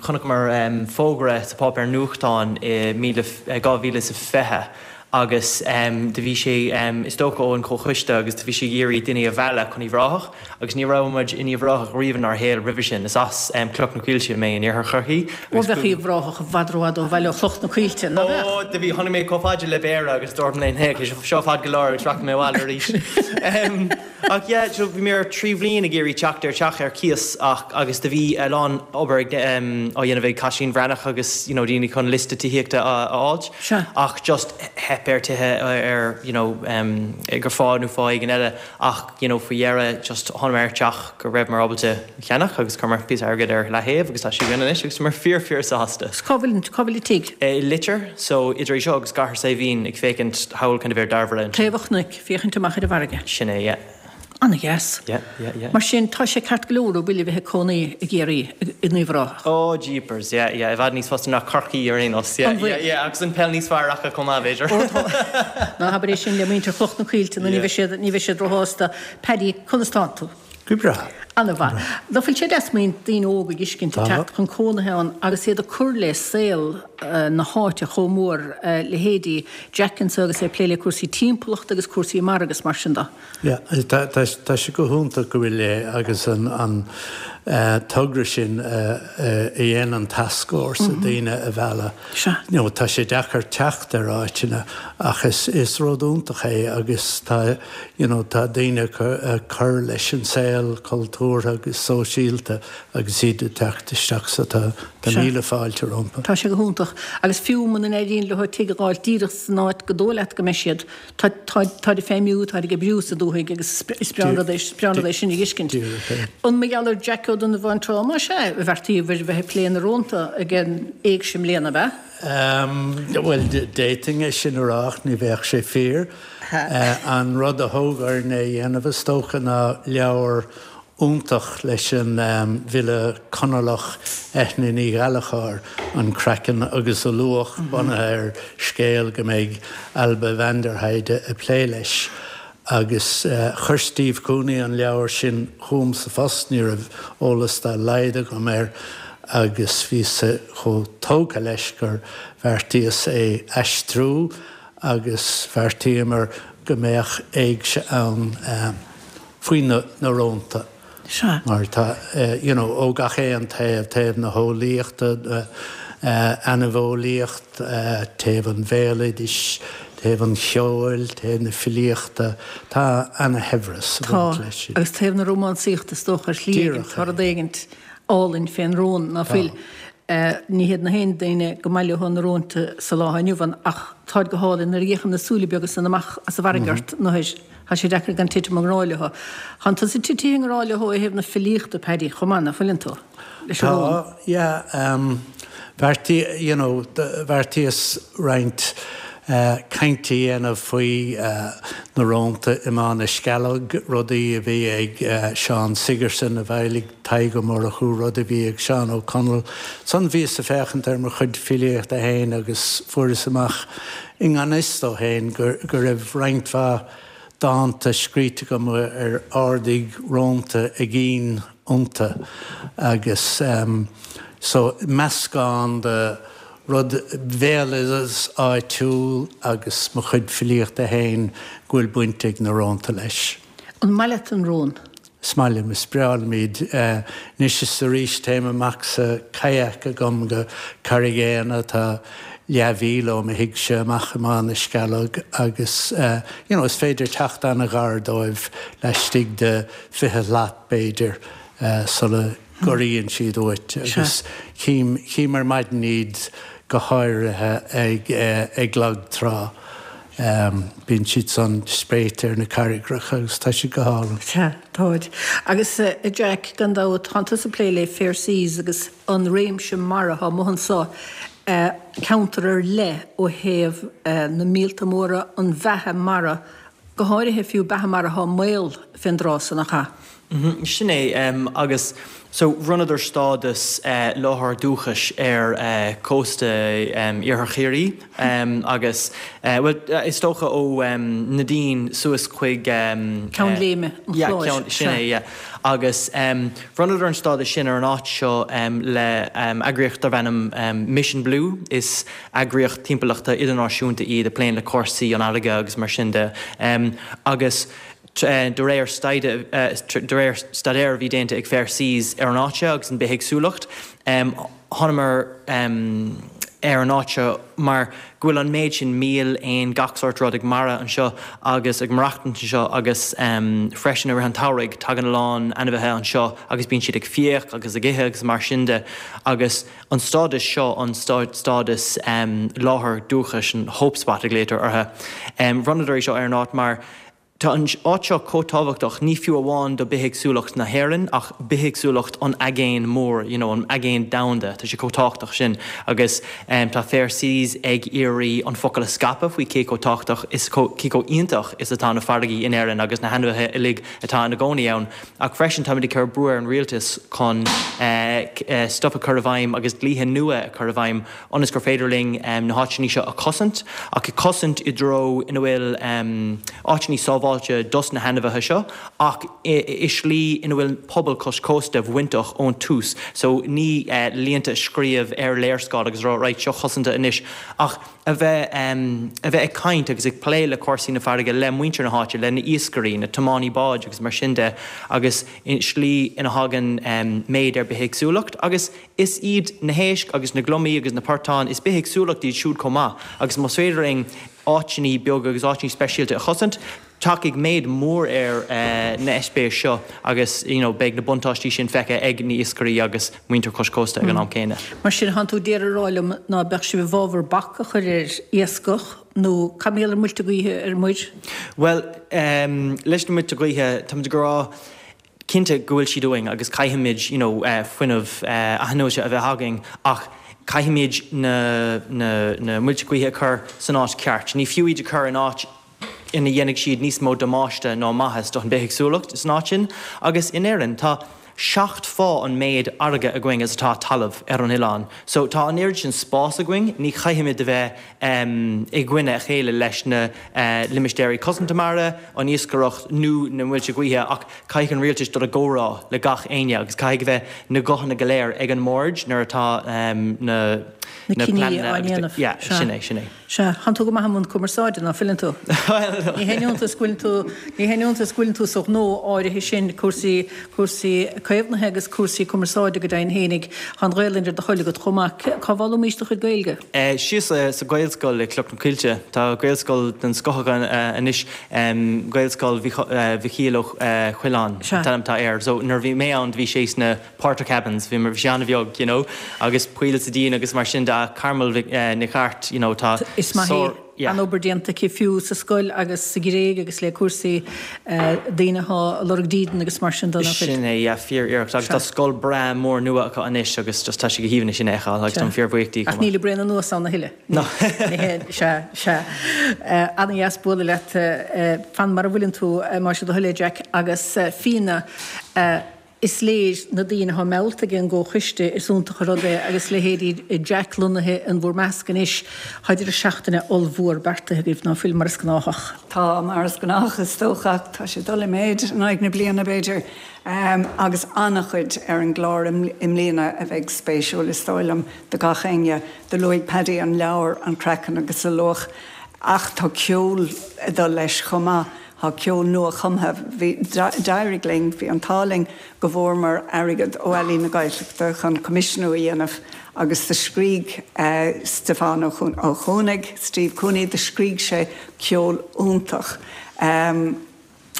chonaiceamar fógra sa pháipéar nuachtáin i 2020 agus do bhí sé, is dócha ón Chomhchoiste agus do bhí sé ag iarraidh daoine a mhealladh chun Uíbh Ráthach agus ní raibh muid in Uíbh Ráthach riamh inár shaol roimhe sin. Is as Cloch na Coillte mé in iarthar Chorcaí Ó agus bheadh Uíbh Ráthach i bhfad rófhada ó bhaile ó Chloch na Coillte, ná beadh? Ó do bhí, tháinig mé chomh fada le Béarra agus dúirt mé léi, seo fada go leor agus rachaidh mé abhaile arís. Ach yeah, so bhí mé ar thrí bhliain ag iarraidh teacht ar teach ar cíos ach agus do bhí a lán obair ag á dhéanamh ag Caitlín Bhreathnach agus you know daoine chun liosta tithíochta a fháilt Sea. ach just theip ar tithe ar you know gur fáth nó fáth éigin eile ach you know faoi dheireadh just tháinig ar teach go rabhamar ábalta a cheannach agus chuireamar píosa airgid ar leaththaobh agus tá sé againn anois agus táimid fíor fíor sásta. Cá bhfuil cá bhfuil an tigh? I Leitir, so idir é seo agus Cathair Saidhbhín ag féachaint thall kind of ar Dairbhre ansin. Taobh an chnoic. Féachaint amach ar an bhfarraige. Sin é, yeah. Ana-dheas. Yeah, yeah, yeah. Mar sin, tá sé ceart go leor an bhfuil a bheith ag cónaí i gCiarraí, in Uíbh Ráthach? Oh, jeepers, yeah, yeah, i bhfad níos fusa ná Corcaigh ar aon nós, yeah, An bhfuil? yeah, yeah, agus an peil níos fearr acu chomh maith, b'fhéidir. Ó, tá. Ná habair é sin le muintir Chloch na Coillte nó ní bheidh siad, ní bheidh siad róshásta. Paddy, conas tánn tú? Go breá. Ana-mhaith. Nach bhfuil sé deas má bhíonn daoine óga ag fheiscint ag Tá. teacht chun cónaithe ann agus iad ag cur le saol na háite chomh mór, leithéidí Jack anso agus é ag plé le cúrsaí timpeallachta agus cúrsaí mara agus mar sin de. Yeah, tá, tá, tá sé go hiontach go bhfuil é agus an, an togra sin a, a dhéanann an tascfhórsa daoine a mhealladh. Sea. You know, tá sé deacair teacht ar áiteanna ach is, is rud iontach é agus tá, you know, tá daoine ag cur leis an saol cultúrtha agus sóisialta agus iad ag teacht isteach so tá tá míle fáilte rompu. Tá sé go hiontach. Agus fiú muna n-éiríonn leo tigh a dh'fháilt díreach san áit go dóigh leat go mbeidh siad, tá tá táid ag feidhmiú, táid ag oibriú sa dúthaigh agus is breá an rud é is breá an rud é sin a dh'fheiscint. Díreach é. An mar gheall ar Jack Ó Donnabháin Trá más ea a bheartaíobhair bheith ag plé na rónta ag an Éigse i mbliana, ab ea? Bhuel, d'fhéadfainn é sin a rá ach ní bheadh sé fíor. An rud a thóg orainn é a dhéanamh, is dócha, ná leabhar iontach leis an bhfile Conallach Eithne Ní Ghallchóir, An Craiceann agus a Luach, bunaithe ar scéal go mbeidh Ailbhe van der Heide ag plé leis. Agus chuir Steve Cooney an leabhar sin chugam sa phost, ní raibh eolas dá laghad agam air agus bhíos-sa chomh tógtha leis gur bheartaíos é aistriú agus bheartaíomar go mbeadh éigse ann faoi na rónta. Sea. Mar tá, you know, ó gach aon taobh, taobh na heolaíochta, ainmheolaíocht, taobh an bhéaloidis, taobh an cheoil, taobh na filíochta, tá ana-shaibhreas ag baint Tá, leis sin. agus taobh na rómánsaíochta is dócha ar shlí éigin, Díreach tá é. rud éigint álainn fén rón, ná Tá. fuil? Ní hiad na haon daoine go maith leo na rónta sa lá inniu ann ach táid go hálainn nuair a fhéachann na súile beaga san amach as an bhfarraige ort nuair tá sé deacair gan titim i ngrá leo. Tánn tusa titithe i ngrá leo ó thaobh na filíochta, Paddy, chomh maith, ná fuileann tú? Leis an rón. Tá, yeah. Bheartaí, you know, bheartaíos roinnt cainte a dhéanamh faoi na rónta i mBá na Scealg, rudaí a bhí ag Seán Sigerson a bhailigh Tadhg Ó Murchú, rud a bhí ag Seán Ó Conaill. Ansan bhíos ag féachaint ar mo chuid filíochta féin agus fuaireas amach i ngan fhios domh féin go raibh roinnt mhaith dánta scríte agam ar ardaigh rónta a gcinn iontu agus so meascán de rud bhéaloideas áitiúil agus mo chuid filíochta féin go bhfuil baint ag na rónta leis. An maith leat an rón? Is maith liom, is breá liom iad. Anois is arís téim amach sa kayak agam go Carraig Éanna atá leathmhíle ó mo thighse amach i mBá na Scealg agus you know is féidir teacht an-ghar dóibh laistigh de 20 slat b'fhéidir sula gcorraíonn siad uait agus chím, chím ar maidin iad go háirithe ag, ag lag trá. Bíonn siad san spréite ar na carraigreacha agus tá siad go hálainn. Sea, táid. Agus a Jack, gan dabht, tánn tusa ag plé le Fair Seas agus an réimse mara atá amuigh anso, ceantar ar leith ó thaobh na míolta móra, an bheatha mara, go háirithe fiú beatha mara atá i mbaol fén dtráth san, nach ea? Sin é, agus so bhronnadar stádas láthair dúchais ar cósta iarthar Chiarraí agus, bhuel, is dócha ó Neidín suas chuig. Ceann Léime an Chláir. Yeah, sin é, yeah. Agus bhronnadar an stádas sin ar an áit seo le eagraíocht darb ainm Mission Blue, is eagraíocht timpeallachta idirnáisiúnta iad a pléann le cúrsaí an fharraige agus mar sin de. Agus De réir staidéir a bhí déanta ag Fair Seas ar an áit seo agus an bithéagsúlacht, thánamar ar an áit seo mar go bhfuil an méid sin míol, éan, gach sórt rud ag maire anseo agus ag maireachtaint anseo agus freisin i rith an tsamhraidh tagann a lán ainmhithe anseo agus bíonn siad ag fiach agus ag ithe agus mar sin de agus an stádas seo an stádas láthair dúchais, an hope spot a ghlaotar orthu. Bhronnadar é seo ar an áit mar Tá an áit seo chomh tábhachtach, ní fiú amháin do bithéagsúlacht na hÉireann ach bithéagsúlacht an aigéin mór, you know, an aigéan domhanda, tá sé chomh tábhachtach sin agus tá Fair Seas ag iarraidh an focal a scaipeadh faoi cé chomh tábhachtach is cé chomh iontach is atá na farraigí in Éirinn agus na hainmhithe uilig atá ina gcónaí ann. Ach freisin táimid ag cur brú ar an rialtas chun stuff a chur i bhfeidhm agus dlíthe nua a chur i bhfeidhm ionas gur féidir linn na háiteanna seo a chosaint, ach a chosaint i dtreo ina bhfuil áiteanna sábháilte dos na hainmhithe seo, ach i slí ina bhfuil pobal cois cósta bainteach ón tús. So ní línte a scríobh ar léarscáil agus a rá right, seo cosanta anois, ach a bheith a bheith ag caint agus ag plé le cúrsaí na farraige le muintir na háite, le na iascairí, na tiománaí báid agus mar sin de, agus i slí ina thagann méid ar bithéagsúlacht agus Is iad na héisc agus na gliomaigh agus na portáin, is bithéagsúlacht iad siúd chomh maith agus más féidir linn áiteanna beaga agus áiteanna speisialta a chosaint, tiocfaidh méid mór ar na heispéiris seo agus you know beidh na buntáistí sin feicthe ag na iascairí agus muintir cois cósta ag an am céanna. Mar sin, thánn tú d'iarraidh a rá liom ná beadh sibh i bhfabhar bac a chur ar iascach nó cad mar gheall ar muilte gaoithe ar muir? Bhuel, leis na muilte gaoithe, táimid ag rá, cinnte go bhfuil siad uainn agus caithfimid you know fuinneamh athnuaite a bheith againn ach caithfimid na na na muilte gaoithe a chur san áit ceart. Ní fiú iad a chur in áit ina dhéanfaidh siad níos mó damáiste ná maitheas don bithéagsúlacht san áit sin. Agus in Éirinn tá 7 fá an méid fharraige againn is atá talamh ar an oileán. So tá an oiread sin spás againn, ní chaithfimid a bheith i gcoinne a chéile leis na limistéirí cosanta mara, an iascaireacht nó na muilte gaoithe ach caithfidh an rialtas dul i gcomhrá le gach éinne agus caithfidh a bheith na guthanna go léir ag an mbord nuair atá na. Na cinní á ndéanamh. Yeah, sin é, sin é. Sea, thánn tú go maith i mbun cumarsáide, ná fuileann tú? Ní haon iontas go bhfuileann tú, ní haon iontas go bhfuileann tú sa ghnó áirithe sin, cúrsaí, cúrsaí caomhnaithe agus cúrsaí cumarsáide go deimhin fhéinig. Tá an Ghaelainn ar do thoil agat chomh maith. Cá bhfoghlaimís do chuid Gaeilge? Síos sa Ghaelscoil i Cloch na Coillte. Tá Gaelscoil den scoth againn anois, Gaelscoil Mhichíl Ó Coileáin an t-ainm atá air. So nuair a bhí mé ann bhí sé sna Portakabins, bhí bhí sé an-bheag, you know, agus poill sa díon agus mar sin de ach Carmel Nic Airt, you know, tá Is maith í. Yeah. An-obair déanta aici fiú sa scoil agus sa Ghréig agus le cúrsaí daoine atá ag lorg dídean agus mar sin de, nach bhfuil? Sin é, yeah, fíor-iarracht. Agus tá scoil breá mór nua acu anois agus just tá sé go haoibhinn é sin a fheiceáil agus táim fíorbhuíoch di chomh maith. Ach níl ag braon anuas ann a thuilleadh. No. Sea, sea. Ana-dheas bualadh leat. Fan mar a bhfuileann tú, más é do thoil é, Jack. Agus Fíona, Is léir, na daoine atá meallta ag an gComhchoiste, is iontach an rud é agus leithéidí Jack lonnaithe in bhur measc anois. Tá deireadh seachtaine ollmhór beartaithe agaibh, ná fuil, mar is gnáthach? Tá, mar is gnách is dócha, ach tá sé ag dul i méid in aghaidh na bliana, b'fhéidir, agus an-chuid ar an gclár i mbliana a bheidh spéisiúil, is dóigh liom, do gach éinne. Do luaigh Paddy an leabhar, An Craiceann agus a Luach, ach tá ceol ag dul leis chomh maith. Tá ceol nua-chumtha. Bhí, d'éirigh linn, bhí an t-ádh linn go bhfuaireamar airgead ó Ealaín na Gaeltachta chun coimisiúnú a dhéanamh agus do scrígh Stiofán Ó Cuanaigh, Steve Cooney, do scrígh sé ceol iontach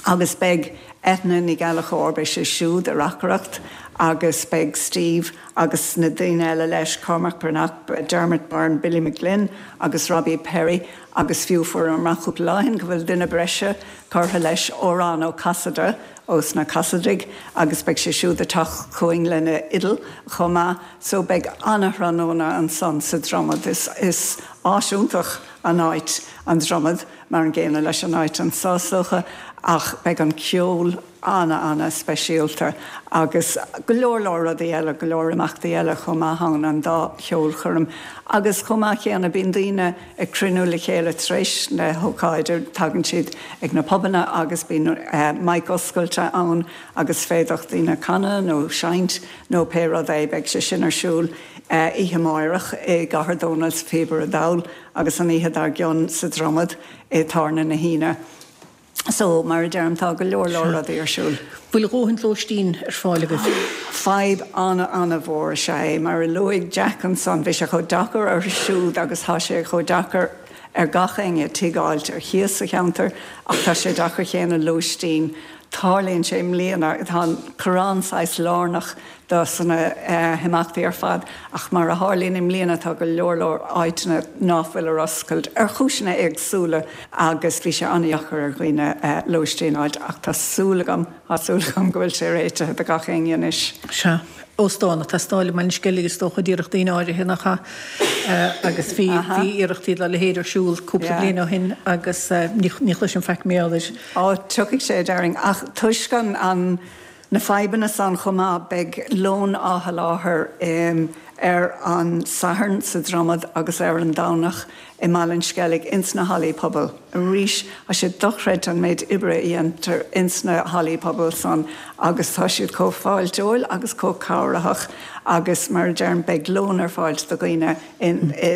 agus beidh Eithne Ní Ghallchóir, beidh sí siúd ag reacaireacht agus beidh Steve agus na daoine eile leis, Cormac Breathnach, Dermot Byrne, Billy McGlynn agus Robbie Perry. Agus fiú fuaireamar amach cúpla lá ó shin go bhfuil duine breise curtha leis, Odhrán Ó Casaide ós na Casaidigh, agus beidh sé siúd ag teacht chugainn lena fhidil chomh maith. So beidh ana-thráthnóna ansan sa Dromad. Is is áis iontach an áit an Dromad, mar an gcéanna leis an áit anso is dócha, ach beidh an ceol ana-ana-speisialta agus go leor leor rudaí eile, go leor imeachtaí eile chomh maith ann, an dá cheolchoirm. Agus chomh maith céanna bíonn daoine ag cruinniú le chéile tar éis na hócáide, tagann siad ag na pubanna agus bíonn mic oscailte ann agus féadfaidh daoine canadh nó seinnt nó pé rud é. Beidh sé sin ar siúl oíche amáireach i gCathair Dónall sa Phíobaire Dall agus an oíche dár gcionn sa Dromad i Tábhairne na hAoine. So, mar a deirim, tá go leor leor rudaí ar siúl. Bhfuil a dhóthain lóistín ar fáil agaibh? Fadhb ana-ana-mhór is ea é. Mar a luaigh Jack ansan, bhí sé chomh deacair orthu siúd agus tá sé chomh deacair ar gach éinne tigh a fháilt ar chíos sa cheantar ach tá sé deacair chéanna lóistín. Tarlaíonn sé i mbliana, tá an Corrán saghas lárnach do sna himeachtaí ar fad ach mar a tharlaíonn i mbliana tá go leor leor áiteanna ná fuil ar oscailt ar chúiseanna éagsúla agus bhí sé an-dheacair ar dhaoine lóistín a fháilt ach tá súil agam, tá súil agam go bhfuil sé réitithe do gach éinne anois. Sea. Óstán ag teastáil i mBaile an Sceilg is dócha d'iarrfadh daoine áirithe nach ea? Agus bhí, bhí iarrachtaí dá leithéid ar siúl cúpla bliain ó shin agus ní chloisim faic mar gheall air. Á, tiocfaidh sé a déarfainn ach toisc an, an, Na fadhbanna san chomh maith, beidh lón á sholáthar ar an Satharn sa Dromad agus ar an Domhnach i mBaile an Sceilg ins na hallaí pobail. Arís, tá sé dochreidte an méid oibre a dhéantar ins na hallaí pobail san agus tá siad chomh fáilteoil agus chomh cabhraitheach agus mar a deirim, beidh lón ar fáilt do dhaoine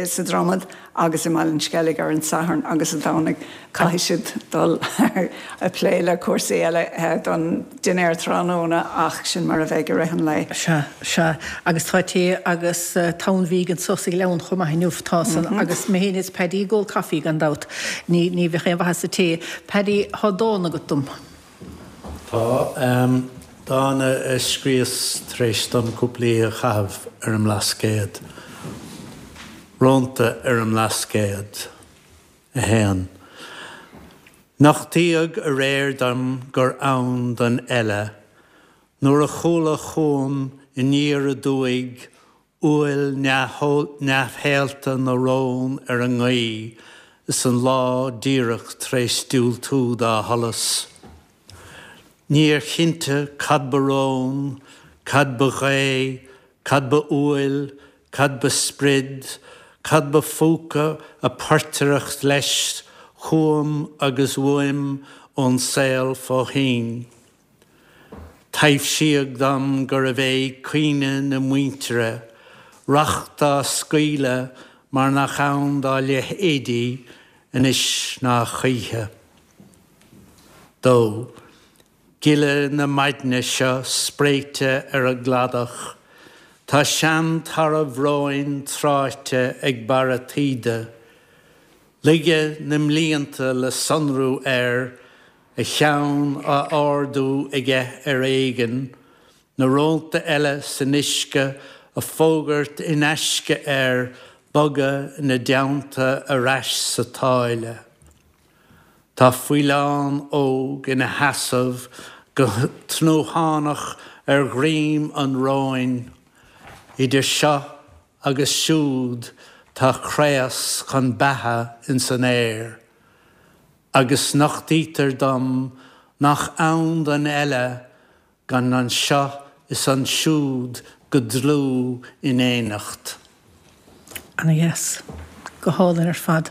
sa Dromad agus i mBaile an Sceilg ar an Satharn agus an Domhnaigh. Caithfidh siad dul ag plé le cúrsaí eile don dinnéar tráthnóna ach sin mar a bheidh i rith an lae. Sea, sea. Agus tá tae agus tonn bhídh anso sa Ghleann chomh maith inniu, tá san. Agus mé féin is Paddy ag ól caife gan dabht. Ní, ní bheadh aon mhaitheas sa tae. Paddy, tá dán agat dom. Tá. Dán a scríos tar éis dom cúpla oíche a chaitheamh ar an mBlascaod. Rónta ar an mBlascaod. 1. Nochtaíodh aréir dom gur ann don eile nuair a chuala chugam aniar aduaidh uaill neamhshaolta na rón ar an ngaoth is an lá díreach tar éis diúltú dá sholas. Níor chinnte cad ba rón, cad ba ghaoth, cad ba uaill, cad ba sprid, cad ba phúca a portaireacht leis chugam agus uaim ón saol fó thoinn. Taibhsíodh dom gurbh é caoineadh na muintire. Racht á scaoileadh mar nach ann dá leithéidí anois ná choíche. 2. Gile na maidne seo spréite ar an gcladach, tá sean-tarbh róin tráite ag barra taoide, Laige na mblianta le sonrú air, a cheann á ardú aige ar éigean, na rónta eile san uisce ag fógairt in aisce air bogadh ina dteannta ar ais sa tsáile. Tá faoileán óg ina sheasamh go tnúthánach ar dhroim an róin, idir seo agus siúd tá craos chun beatha ins an aer, agus nochtaítear dom nach ann don eile gan anseo is ansiúd go dlúth in éineacht. Ana-dheas. Go hálainn ar fad.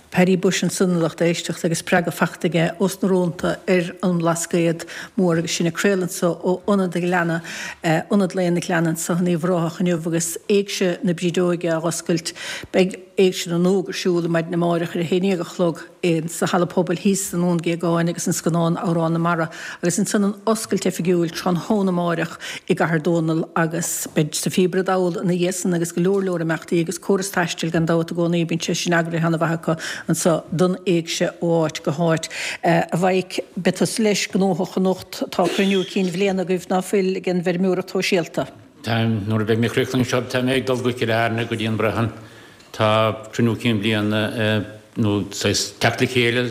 Paddy Bushe ansan a lucht éisteachta agus spreagadh fachta aige ós na rónta ar an mBlascaod Mór agus sinn ag craoladh anso ó Ionad an Ghleanna, Ionad Lae an Ghleanna anso in Uíbh Ráthach inniu agus Éigse na Brídeoige á dh'oscailt. Beidh Éigse na nÓg ar siúl maidin amáireach ar a haon dhéag a chlog. sa Halla Pobail thíos i nDún Géagáin agus an scannán Amhrán na Mara agus ansan an oscailt oifigiúil tráthnóna amáireach i gCathair Dónall agus beidh sa Phíobaire Dall ina dhiaidh san agus go leor leor imeachtaí agus córas taistil gan dabht i gcónaí bíonn sé sin eagraithe ana mhaith acu anso don Éigse ó áit go háit. A Mhaidhc, beidh tusa leis gnóthach anocht, tá cruinniú cinn bhliana agaibh ná fuil ag an bhfeirmeoireacht shóisialta? Táim, nuair a bheidh mé críochnaithe anseo tá mé ag dul go Cill Airne go dtí an Brehon. Tá cruinniú cinn bliana nó saghas teacht le chéile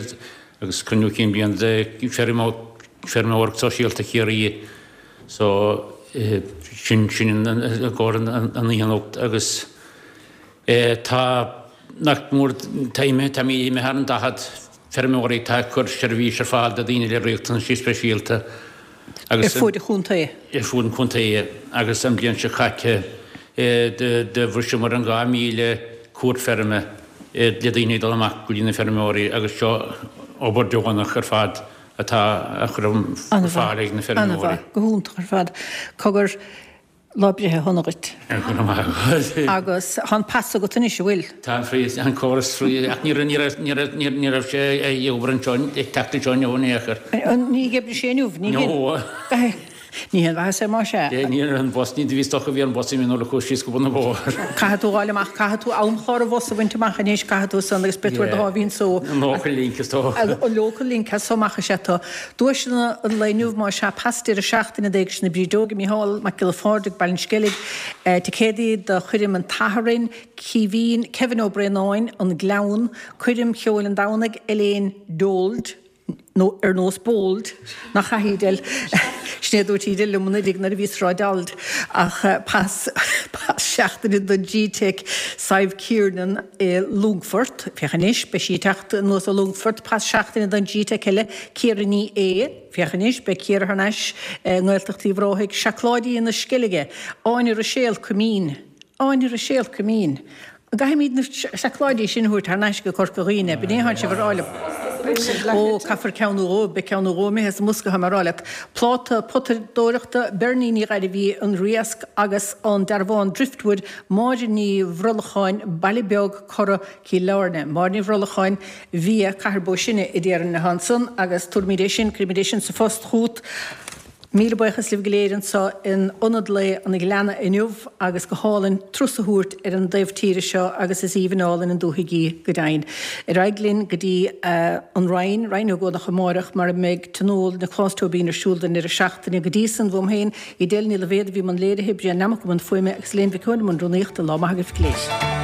agus cruinniú cinn bliana de Feirmeoireacht Sóisialta Chiarraí so sin sin i gcomhair an oíche anocht agus tá nach mór tá imithe tá imithe thar an 40 feirmeoirí atá ag cur seirbhís ar fáil do daoine le riachtanaisí speisialta agus Ar fuaid an chontae. Ar fuaid an chontae agus an bhliain seo caite do bhriseamar an 2,000 cuairt feirme le daoine ag dul amach go dtí na feirmeoirí agus seo obair deonach ar fad atá á chur ar fáil ag na feirmeoirí. An-mhaith, go hiontach ar fad. Cogar, Lá breithe shona dhuit. Go raibh maith agat. Agus tá an pas agat anois, an bhfuil? Tá an free, an córas free, ach ní raibh, ní raibh, ní raibh, ní raibh sé ag obair anseo, ag teacht anseo inniu in aon chor. Ní oibreoidh sé inniu, ní No. Ní haon mhaitheas é más ea. Ní raibh an bus, ní bhí stoc a bhí ar an bus i mí nuair a chuaigh síos go bun an bhóthair. Caithfidh tú a ghabháil amach, caithfidh tú amchlár an bhus a bhaint amach anois, caithfidh tú san agus beidh tú ar do sháimhín só. An local link is dócha. An local link as so amach is ea tú. Duaiseanna an lae inniu, más ea, pas deireadh seachtaine d'Éigse na Brídeoige, Micheál Mac Giolla Phádraig, Baile an Sceilg, ticéadaí do choirm an tSathairn, Caoimhín, Kevin Ó Braonáin, An Gleann, coirm cheoil an Domhnaigh, Elaine Dold, nó ar nós bold, nach ea Edel? Sin é a dúirt Edel liom anuraidh nuair a bhíos ag rá dold, ach pas, pas seachtaine do G-Tech Sadhbh Kiernan i Longfort, féach anois, beidh sí ag teacht anuas ó Longfort, pas seachtaine don G-Tech eile, Ciara Ní É, féach anois, beidh Ciara thar n-ais i nGaeltacht Uíbh Ráthaigh, Seacláidí na Sceilge, Áine Ruiséal, Coimín. Áine Ruiséal, Coimín. An gcaithfimid na seacláidí sin a thabhairt thar n-ais go Corca Dhuibhne? B'in é atánn sibh a rá liom. Ó, caithfear ceann nó dhó, beidh ceann nó dhó imithe sa mbosca, tá mé a rá leat. Pláta potadóireachta, Bernie Ní Ghairbhí, An Riasc agus an dearbhán Driftwood, Máire Ní Bhrollacháin, Baile Beag, Cora, Cill Airne. Máire Ní Bhrollacháin, Via, Cathair Bó Sine a déarfainn atá ansan agus tabharfaimid é sin, cuirfimid é sin sa phost chugat. Míle buíochas libh go léir anseo in Ionad Lae an Ghleanna inniu agus go hálainn turas a thabhairt ar an dtaobh tíre seo agus is aoibhinn álainn an dúthaigh í go deimhin. Ar aghaidh linn go dtí an Rinn, Rinn Ó gCuanach amáireach mar a mbeidh Tionól Nioclás Tóibín ar siúl don deireadh seachtaine. Go dtí san, uaim féin, Edel Ní Loibhéad a bhí i mbun léirithe, Brian Nammock i mbun fuaime agus Elaine Mhic Eoin i mbun rúnaíochta. Lá maith agaibh go léir.